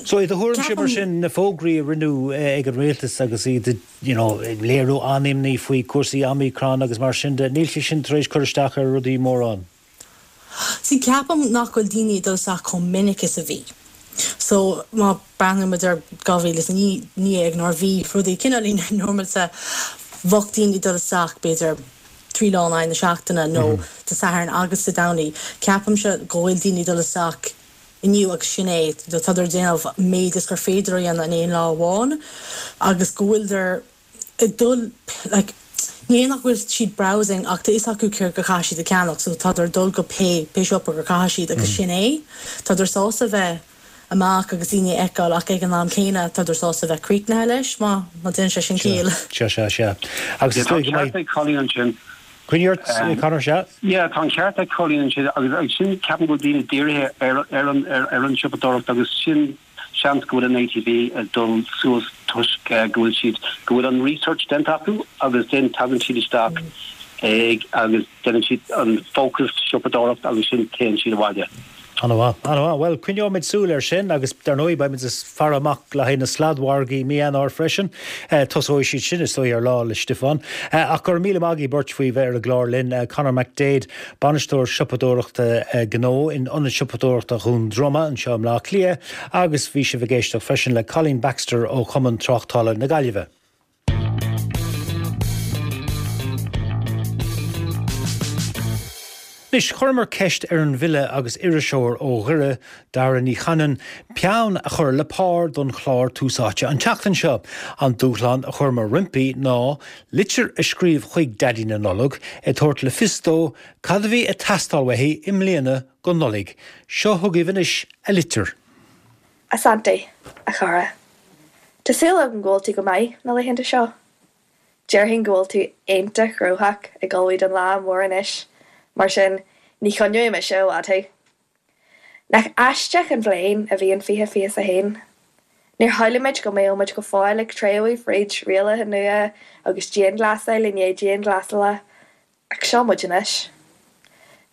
So i do thuairimse mar sin, na fógraí a rinneadh ag an rialtas agus iad ag you know léiriú an-imní faoi cúrsaí Omicron agus mar sin de, níl sé sin tar éis cur isteach ar rudaí mórán? See, ceapaim nach bhfuil daoine ag dul isteach chomh minic is a bhí. So, má breathnaíonn muid ar 2019 nuair a bhí rudaí cineáilín normálta, bheadh daoine ag dul isteach b'fhéidir 3 lá in aghaidh na seachtaine nó Dé Sathairn agus Dé Domhnaigh. Ceapaimse go bhfuil daoine ag dul isteach inniu agus sin é, tádar ag déanamh méid is gur féidir a dhéanamh in aon lá amháin agus go bhfuiltear ag dul like ní hé nach bhfuil siad browsing ach tá fhios acu céard go caithfidh siad a ceannach so tádar ag dul go pé pé siopa gur caithfidh siad agus sin é. Tádar sásta bheith amach agus daoine a fheiceáil ach ag an am céanna tádar sásta bheith críochnaithe leis má má déanann sé sin ciall. Sea, sea, sea. Agus is Tá dóigh an go ceart mbeidh. ag Colleen ansin. Coinnigh ort, Conor, sea. Yeah, tá an ceart ag Colleen ansin agus agus sin ceapaim go bhfuil daoine dírithe ar ar an ar ar an siopadóireacht agus sin Seans go bhfuil an ATV ag dul suas toisc go bhfuil siad, go bhfuil an research déanta acu agus then tagann siad isteach ag agus déanann siad an focused siopadóireacht agus sin téann siad abhaile. An-mhaith, an-mhaith. Bhuel, coinneoimid súil air sin agus dar ndóigh beimid ag faire amach le haghaidh na sladmhargaí mí Eanáir freisin. Tosóidh siad sin is dóigh ar Lá 'le Stiofáin. Ach go raibh míle maith agaibh beirt faoi bheith ar an gclár linn, Conor McDaid, Bainisteoir Siopadóireachta Gnó in Ionad Siopadóireachta Dhún Droma anseo i mBleá Cliath agus bhí sibh ag éisteacht freisin le Colleen Baxter ó Chumann Tráchtála na Gaillimhe. Anois, chuireamar ceist ar an bhfile agus iriseoir ó Dhoire, Dara Ní Chanainn, peann a chur le pár don chlár Tús Áite an tseachtain seo. An dúshlán a chuireamar roimpi ná litir a scríobh chuig Daidí na Nollag ag tabhairt le fios dó cad a bhí ag teastáil uaithi i mbliana don Nollaig. Seo chugaibh anois a litir. A Santaí, a chara. Tá súil agam go bhfuil tú go maith na laethanta seo. Déarfainn go bhfuil tú iontach gnóthach ag ullmhú don lá mór anois, mar sin ní choinneoidh mise i bhfad thú. Nach aisteach an bhliain a bhí in 2021? Níor shamhlaigh muid go mbeadh muid go fóill ag treabhadh fríd rialacha nua agus dianghlasáil i ndiaidh dianghlasála, ach seo muid anois.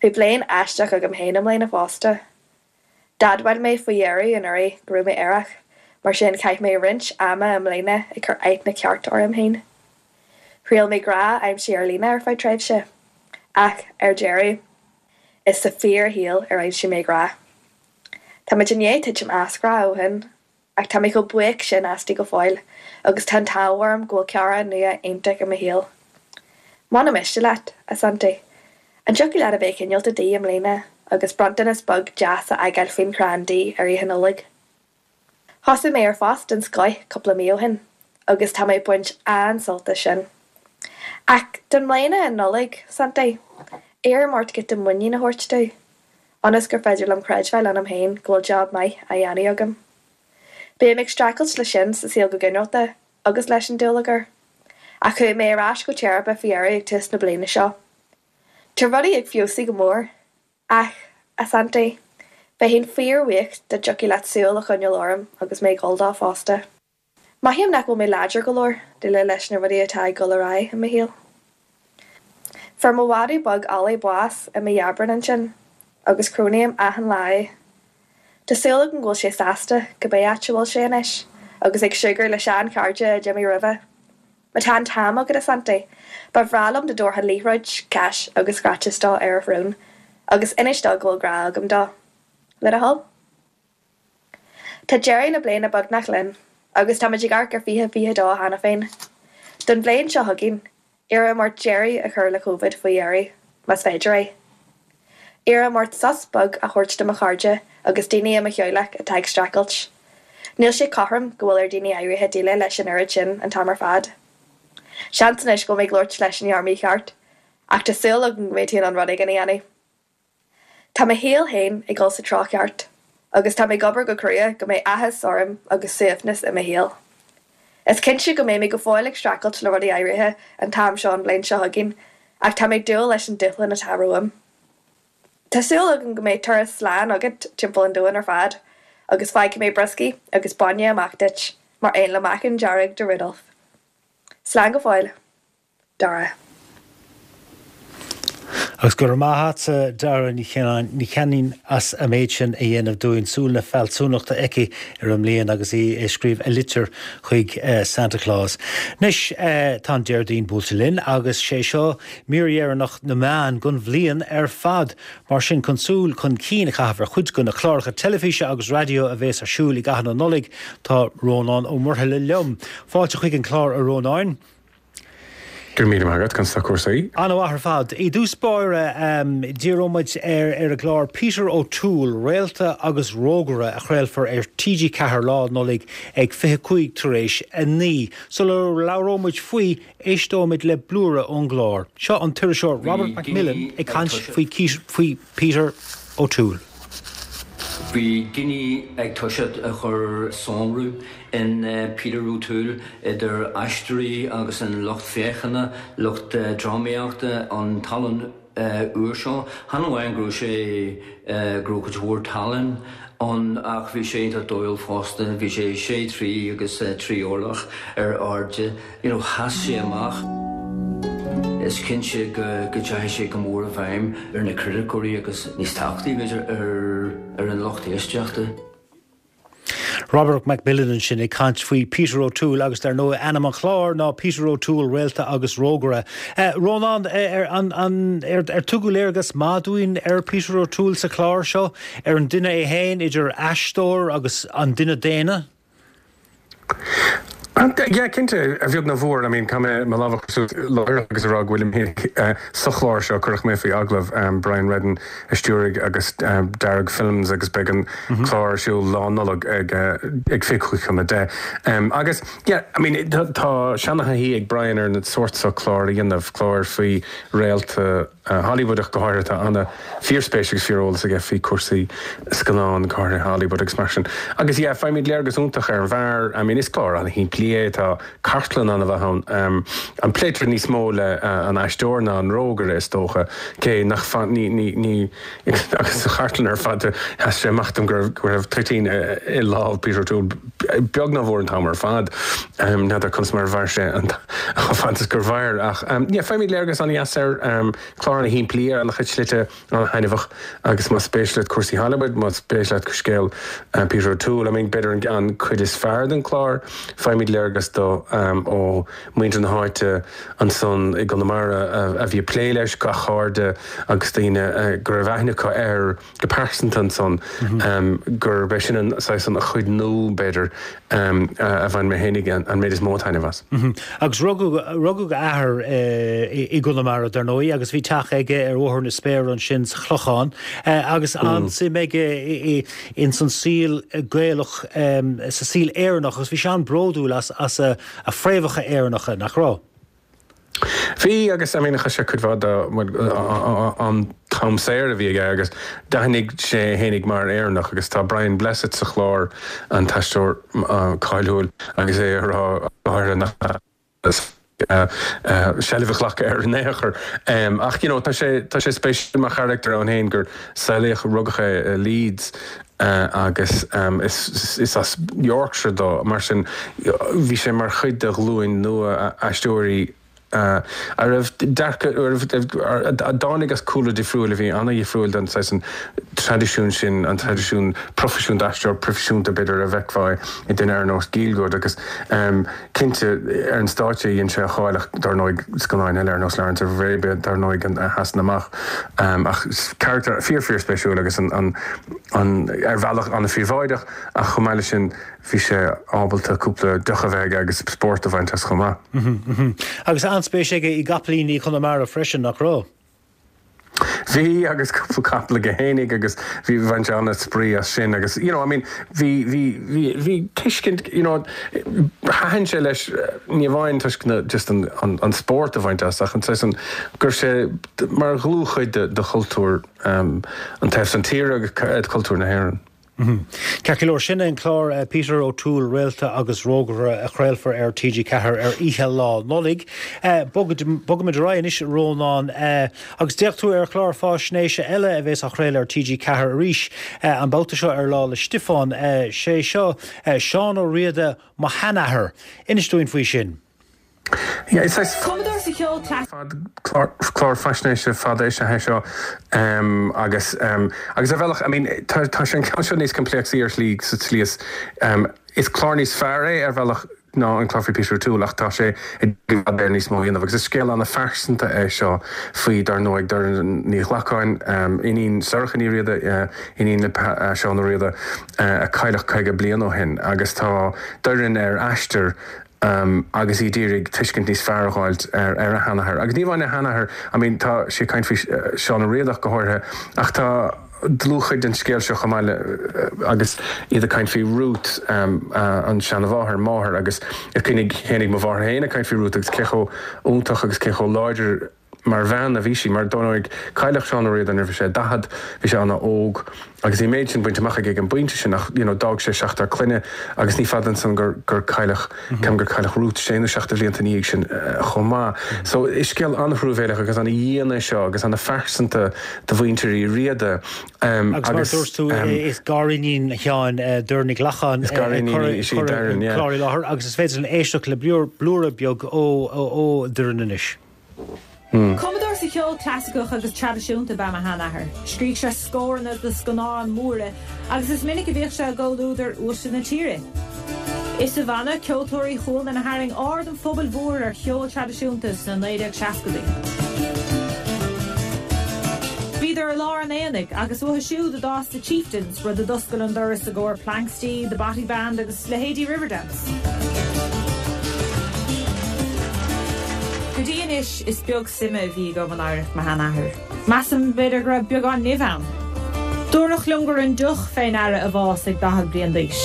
Bhí bliain aisteach agam féin i mbliana fosta. D'admháil mé faoi dheireadh anuraidh go raibh mé aerach, mar sin chaith mé roinnt ama i mbliana ag cur aithne ceart orm féin. Thriail mé grá a aimsiú ar líne ar feadh tréimhse, ach ar deireadh, Is sa fíorshaol ar aimsigh mé grá. Tá muid i ndiaidh titim as grá ó shin, ach tá mé chomh buíoch sin aisti go fóill agus tá an t-ádh orm go bhfuil cara nua iontach i mo shaol. Muna miste leat, a Santaí, an dtiocfadh leat a bheith cineálta di i mbliana agus bronntanas beag deas a fhágáil faoin chrann di ar Oíche Nollag? Thosaigh mé ar phost den scoith cúpla mí ó shin agus tá mé ag baint an-sult as sin. Ach don mbliana an Nollaig, Santaí, iarraim ort giota muinín a thabhairt domh, ionas gur féidir liom creidbheáil ionam féin go bhfuil job maith á dhéanamh agam. Bím ag streachailt leis sin sa saol go ginearálta agus leis an dúlagar. Ach chuaigh mé ar ais go teiripe faoi dheireadh ag tús na bliana seo. Tá rudaí ag feabhsú go mór. Ach, a Santaí, bheinn fíorbhuíoch dá dtiocfadh leat súil a choinneáil orm agus mé ag dul dó fosta. Mothaím nach bhfuil mé láidir go leor déileáil leis na rudaí atá ag dul ar aghaidh i mo shaol. Fuair mo mhadadh beag Ollie bás i mí Aibreáin ansin, agus cronaím achan lá é. Tá súil agam go bhfuil sé sásta cibé áit a bhfuil sé anois, agus ag súgradh le sean-chairde a d'imigh roimhe. Má tá an t-am agat, a Santaí, ba bhreá liom dá dtabharfá liathróid, cais agus scratches dó ar a shrón, agus inis dó go bhfuil grá agam dó. Le do thoil. Tá deireadh na bliana beagnach linn, agus táimid ag amharc ar 2022 cheana féin. Don bhliain seo chugainn, iarraim ort deireadh a chur le Covid faoi dheireadh, más féidir é. Iarraim ort sos beag a thabhairt do mo chairde agus daoine i mo theaghlach atá ag streachailt. Níl sé cothrom go bhfuil ar daoine áirithe déileáil leis an oiread sin an t-am ar fad. Seans anois go bhfuil mé ag labhairt leis an fhear mícheart, ach tá súil agam go mbeidh tú in ann rud éigin a dhéanamh. Tá mo shaol féin ag dul sa treo ceart, agus tá mé ag obair go crua go mbeidh áthas orm agus suaimhneas i mo shaol. Is cinnte go mbeidh mé go fóill ag streachailt le rudaí áirithe an t-am seo an bhliain seo chugainn, ach tá mé ag dúil leis an dúshlán atá romham. Tá súil agam go mbeidh turas slán agat timpeall an domhain ar fad, agus fágfaidh mé brioscaí agus bainne amach duit, mar aon le meacan dearg do Rudolph. Slán go fóill. Dara. Agus go raibh maith agatsa Dara Ní Chanainn as an méid sin a dhéanamh dúinn. Súil na fealsúnachta aici ar an mbliain agus í ag scríobh a litir chuig Santa Claus. Anois tá an Déardaoin buailte linn agus sé seo mír dheireanach na meán don bhliain ar fad. Mar sin chun súil chun cinn a chaitheamh ar chuid de na cláracha teilifíse agus raidió a bhéas ar siúl i gcaitheamh na Nollag tá Rónán Ó Muirthile liom. Fáilte chuig an chlár a Rónáin. Go raibh míle maith agat, conas tá cúrsaí? An-mhaith ar fad. I dtús báire, díreoidh muid ar ar an gclár Peter O'Toole, Réalta agus Rógaire a chraolfar ar TG4 Lá Nollag ag 25 tar éis 9. Sula labhróidh muid faoi, éisteoimid le blúire ón gclár. Seo an t-iriseoir Robert McMillen ag caint faoi Peter O'Toole. Bhí daoine ag toiseacht a chur sonrú in Peter O'Toole, idir aisteoirí agus an lucht féachana, lucht drámaíochta, an tallann úr seo. Chan amháin go raibh sé, go raibh cuid mhór tallann ann ach bhí sé iontach dóighiúil fosta. Bhí sé sé troigh agus 3 orlach ar airde. You know, sheas sé amach. Is cinnte go dteachaigh sé go mór i bhfeidhm ar na criticeoirí agus níos tábhachtaí, b'fhéidir, ar an lucht éisteachta. Robert McMillen ansin ag caint faoi Peter O'Toole agus dar ndóigh ainm an chláir ná Peter O'Toole, Réalta agus Rógaire. Rónán, ar tugadh léargas maith dúinn ar Peter O'Toole sa chlár seo, ar an duine é féin, idir aisteoir agus an duine daonna? Yeah, cinnte, a bheag nó a mhór. I mean, caithfidh mé mo lámh a chur suas láithreach agus a rá go bhfuilim féin sa chlár seo, cuireadh mé faoi agallamh, Brian Reddin a stiúraigh agus Dearg Films agus beidh an clár ar siúl Lá Nollag ag ag 25 chun 10. Agus, yeah, I mean, tá seana-thaithí ag Brian ar an sórt seo clár a dhéanamh, cláir faoi réalta, Hollywood ach go háirithe. Tá ana fíorspéis agus fíoreolas aige faoi cúrsaí scannán, go háirithe Hollywood agus mar sin. Agus yeah, faighimid léargas iontach ar an bhfear. I mean, is clár ana-shimplí é, tá cartlann ana-mhaith ann. An pléitear níos mó le an aisteoir ná an rógaire is dócha, cé nach fan, ní, ní, ní, agus sa chartlann ar fad sheas sé amach dom go raibh, go raibh toitín i lámh Peter O'Toole beag nó mór an t-am ar fad. N'fheadar conas mar a mhair sé an chomh fada is gur mhair ach yeah faighimid léargas an-dheas air. Clár ana-shimplí ar an-chuid slite, an-thaitneamhach agus más spéis leat cúrsaí Hollywood, más spéis leat scéal Peter O'Toole, I mean b'fhéidir an cuid is fearr den chlár, faighimid léargas dó ó mhuintir na háite ansan i gConamara a bhí ag plé leis, gach cairde agus daoine go raibh aithne acu air. go pearsanta ansan, gurb é sin an saghas an chuid nua, b'fhéidir, a bhain mé fhéinig an méid is mó taitneamh as. Agus rugadh, rugadh a athair i gConamara, dar ndóigh, agus bhí teach aige ar Bhóthar na Spéire ansin sa Chlochán, agus an-suim aige ins an saol Gaelach, sa saol Éireannach, agus bhí sé an-bhródúil as, as a fréamhacha Éireannacha, nach raibh? Bhí, agus I mean chaith sé cuid mhaith de an t-am saor a bhí aige agus d'aithnigh sé é fhéinig mar Éireannach agus tá Brian Blessed sa chlár, an t-aisteoir cáiliúil, agus é ag rá go háirithe nach seilbh a ghlacadh air in aon chor. Ach you know tá sé tá sé spéisiúil mar charachtar ann féin gur saolaíodh, rugadh é i Leeds agus is as Yorkshire dó, mar sin bhí sé mar chuid de ghlúin nua aisteoirí a raibh dearcadh, a dtáinig as cúlra difriúil, a bhí an-dhifriúil den saghas an traidisiún sin, an traidisiún proifisiúnta, aisteoir proifisiúnta b'fhéidir a bhfeicfeá i duine ar nós Gielgud agus cinnte ar an stáitse dhein sé a cháil ach dar ndóigh scannáin eile ar nós Lawrence of Arabia dar ndóigh a sheasann amach ach carachtar fíor fíor spéisiúil agus an an an ar bhealach an-phríobháideach ach chomh maith leis sin bhí sé ábalta cúpla deoch a bheith aige agus spórt a bhaint as chomh maith. Agus an-spéis aige i gcapaillíní Chonamara freisin, nach raibh? Bhí agus cúpla capall aige fhéinig agus bhí bhain sé an-spraoi as sin agus you know I mean bhí bhí bhí bhí tuiscint you know thaitin sé leis ní amháin toisc na just an an an spórt a bhaint as ach an saghas an go raibh sé mar dhlúthchuid de de chultúr an taobh san tíre agus cultúr na hÉireann. Ceart go leor, sin é an clár Peter O'Toole, Réalta agus Rógaire a chraolfar ar TG4 ar oíche Lá Nollag. Bogfaimid ar aghaidh anois, a Rónáin, agus d'fhéach tú ar chlár fáisnéise eile a bheas á chraoladh ar TG4 arís, an babhta seo ar Lá 'le Stiofáin. Sé seo Seán Ó Riada, Mo Sheanathair. Inis dúinn faoi sin. Yeah, is saghas. Cumadóir sa cheol clasaiceach. Clár faisnéise fada is ea é seo agus agus ar bhealach, I mean, tá tá sé an ceann seo níos coimpléacsaí ar shlí sa tslí is is clár níos fearr é ar bhealach ná an clár faoi Peter O'Toole ach tá sé i bhfad Éireann níos mó a dhéanamh agus is scéal an-phearsanta é seo faoi dar ndóigh Doireann Ní Ghlacáin, iníon Sorcha Ní Riada, iníon le Seán Ó Riada a cailleadh 50 bliain ó shin agus tá Doireann ar aistear agus í d'iarraidh tuiscint níos fearr a dh'fháilt ar a sheanathair. Agus ní amháin a sheanathair, I mean tá sí ag caint faoi Seán Ó Riada ach go háirithe, ach tá dlúthchuid den scéal seo chomh maith le, agus iad ag caint faoi Ruth, an seanamháthair, máthair, agus is cuimhin féinig mo mháthair féin ag caint faoi Ruth agus cé chomh iontach agus cé chomh láidir mar bhean a bhí sí, mar dar ndóigh cailleadh Seán Ó Riada nuair a bhí sé 40, bhí sé ana-óg agus bhí an méid sin bainte amach aige ag an bpointe sin ach you know d'fhág sé seachtar clainne agus ní fada ansan gur gur cailleadh, ceapaim gur cailleadh Ruth sé nó seacht de bhlianta ina dhiaidh sin chomh maith. So is scéal an-thruamhéileach agus ana-dhian é seo agus ana-phearsanta do mhuintir Uí Riada Agus mar a dúirt tú is gariníon Sheáin, Doireann Ní Ghlacáin, Is gariníon í, is í Doireann, yeah. clár i láthair agus is féidir linn éisteacht le blúire beag ó Doireann anois. Cumadóir sa cheol clasaiceach agus traidisiúnta ab ea mo sheanathair. Scrígh sé scóranna do scannáin mhóra agus is minic a bhíodh sé i gcomhluadar uaisle na tíre. Is sa bhanna Ceoltóirí Chualann a tharraing aird an phobail mhóir ar cheol traidisiúnta sna 1960idí. Bhíodar i lár an aonaigh agus uathu siúd a d'fhás The Chieftains, rud a d'oscail an doras i gcomhair Planxty, The Bothy Band agus leithéidí Riverdance. Go dtí anois is beag suime a bhí agam in oidhreacht mo sheanathar. Measaim, b'fhéidir, go raibh beagán nimh ann. Dúradh liom gur an deoch fé ndeara a bhás ag 40 bliain d'aois.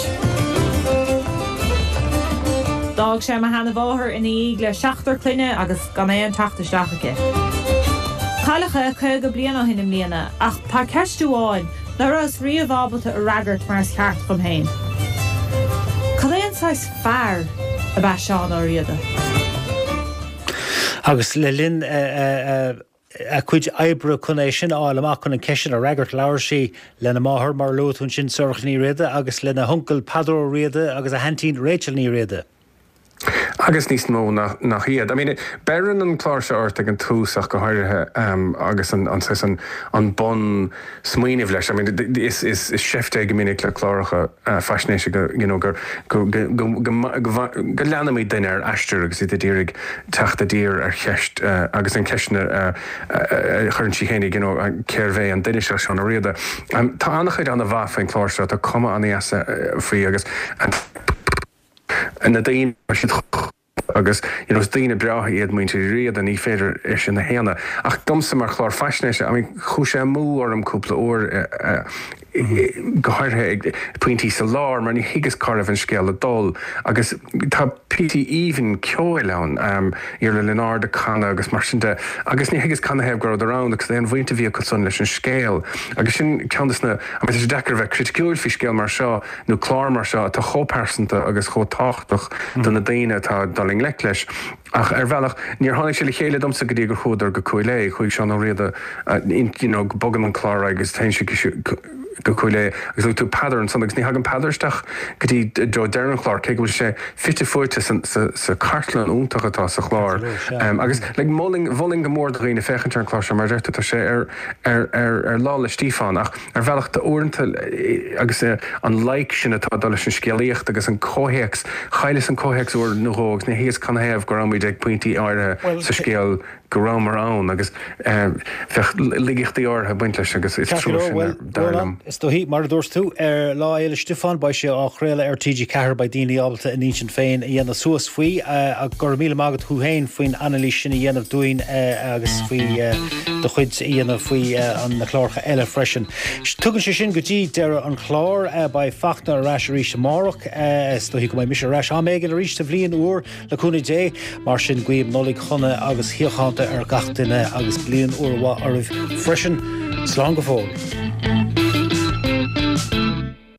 D'fhág sé mo sheanamháthair ina dhiaidh le seachtar clainne agus gan aon teacht isteach aici. Cailleadh é 50 bliain ó shin i mbliana ach tá ceist amháin ná rabhas riamh ábalta a fhreagairt mar is ceart dhom féin. Cad é an saghas fear ab ea Seán Ó Riada? Agus le linn a cuid oibre chun é sin a fháil amach, chun an cheist sin a fhreagairt, labhair sí lena máthair, mar a luaigh tú ansin, Sorcha Ní Riada, agus lena huncail Peadar Ó Riada agus a haintín Rachel Ní Riada. Agus níos mó nach iad. I mean, beireann an clár seo ort ag an tús ach go háirithe agus an saghas an an bun smaoineamh leis. I mean, is is is seift é go minic le cláracha faisnéise go you know gur go go go go go leanaimid duine ar aistear agus iad ag iarraidh teacht i dtír ar cheist agus an cheist a chuireann sí féinig you know cérbh é an duine seo Seán Ó Riada. Tá an-chuid an-mhaith faoin chlár seo, tá cuma an-dheas faoi agus na daoine, tá siad chomh agus you know is daoine breátha iad muintir Uí Riada, ní féidir é sin a shéanadh. Ach domsa mar chlár faisnéise, I mean chuaigh sé amú orm cúpla uair, go háirithe ag pointí sa lár mar ní thuigeas cá raibh an scéal ag dul agus tá píosaí aoibhinn ceoil ann, Iarla Lionáird ag canadh agus mar sin de agus ní thuigeas canathaobh go rabhadar ann agus aon bhaint a bhí acu san leis an scéal agus sin ceann des na, I mean tá sé deacair a bheith criticiúil faoi scéal mar seo nó clár mar seo atá chomh pearsanta agus chomh tábhachtach do na daoine atá ag dul i ngleic leis. Ach ar bhealach, níor tháinig sé le chéile domsa go dtí gur chuadar go Cúil Aodha. Chuaigh Seán Ó Riada, you know, bogann an clár ar aghaidh agus téann sé go Cúil Aodha agus luaigh tú Peadar ansan agus ní thagann Peadar isteach go dtí deireadh an chláir, cé go bhfuil sé fite fuaite sa chartlann iontach atá sa chlár. Agus like mholfainn, mholfainn go mór do dhaoine féachaint ar an chlár seo mar a deir tú, tá sé ar, ar, ar, ar Lá 'le Stíofáin ach, Ar bhealach, tá uaireanta, agus an loighic sin atá ag dul leis an scéalaíocht agus an comhthéacs, chailleas an comhthéacs uair nó dhó agus ní thuigeas canathaobh go raibh muid ag pointí áirithe sa scéal go rabhamar ann agus bheadh laigeachtaí áirithe ag baint leis agus is trua sin, dar liom. Is dóichí, mar a dúirt tú, ar Lá Fhéile Stiofáin beidh sé á chraoladh ar TG4, beidh daoine ábalta a n-intinn féin a dhéanamh suas faoi. Go raibh míle maith agat thú féin faoin anailís sin a dhéanamh dúinn agus faoi. do chuid a dhéanamh faoi na cláracha eile freisin. Tugann sé sin go dtí deireadh an chláir. Beidh Fachtna ar ais arís amárach. Is dóichí go mbeidh mise ar ais am éigin arís sa bhliain úr, le cúnamh Dé. Mar sin, guím Nollaig shona agus shíochánta ar gach duine agus bliain úr mhaith oraibh freisin. Slán go fóill.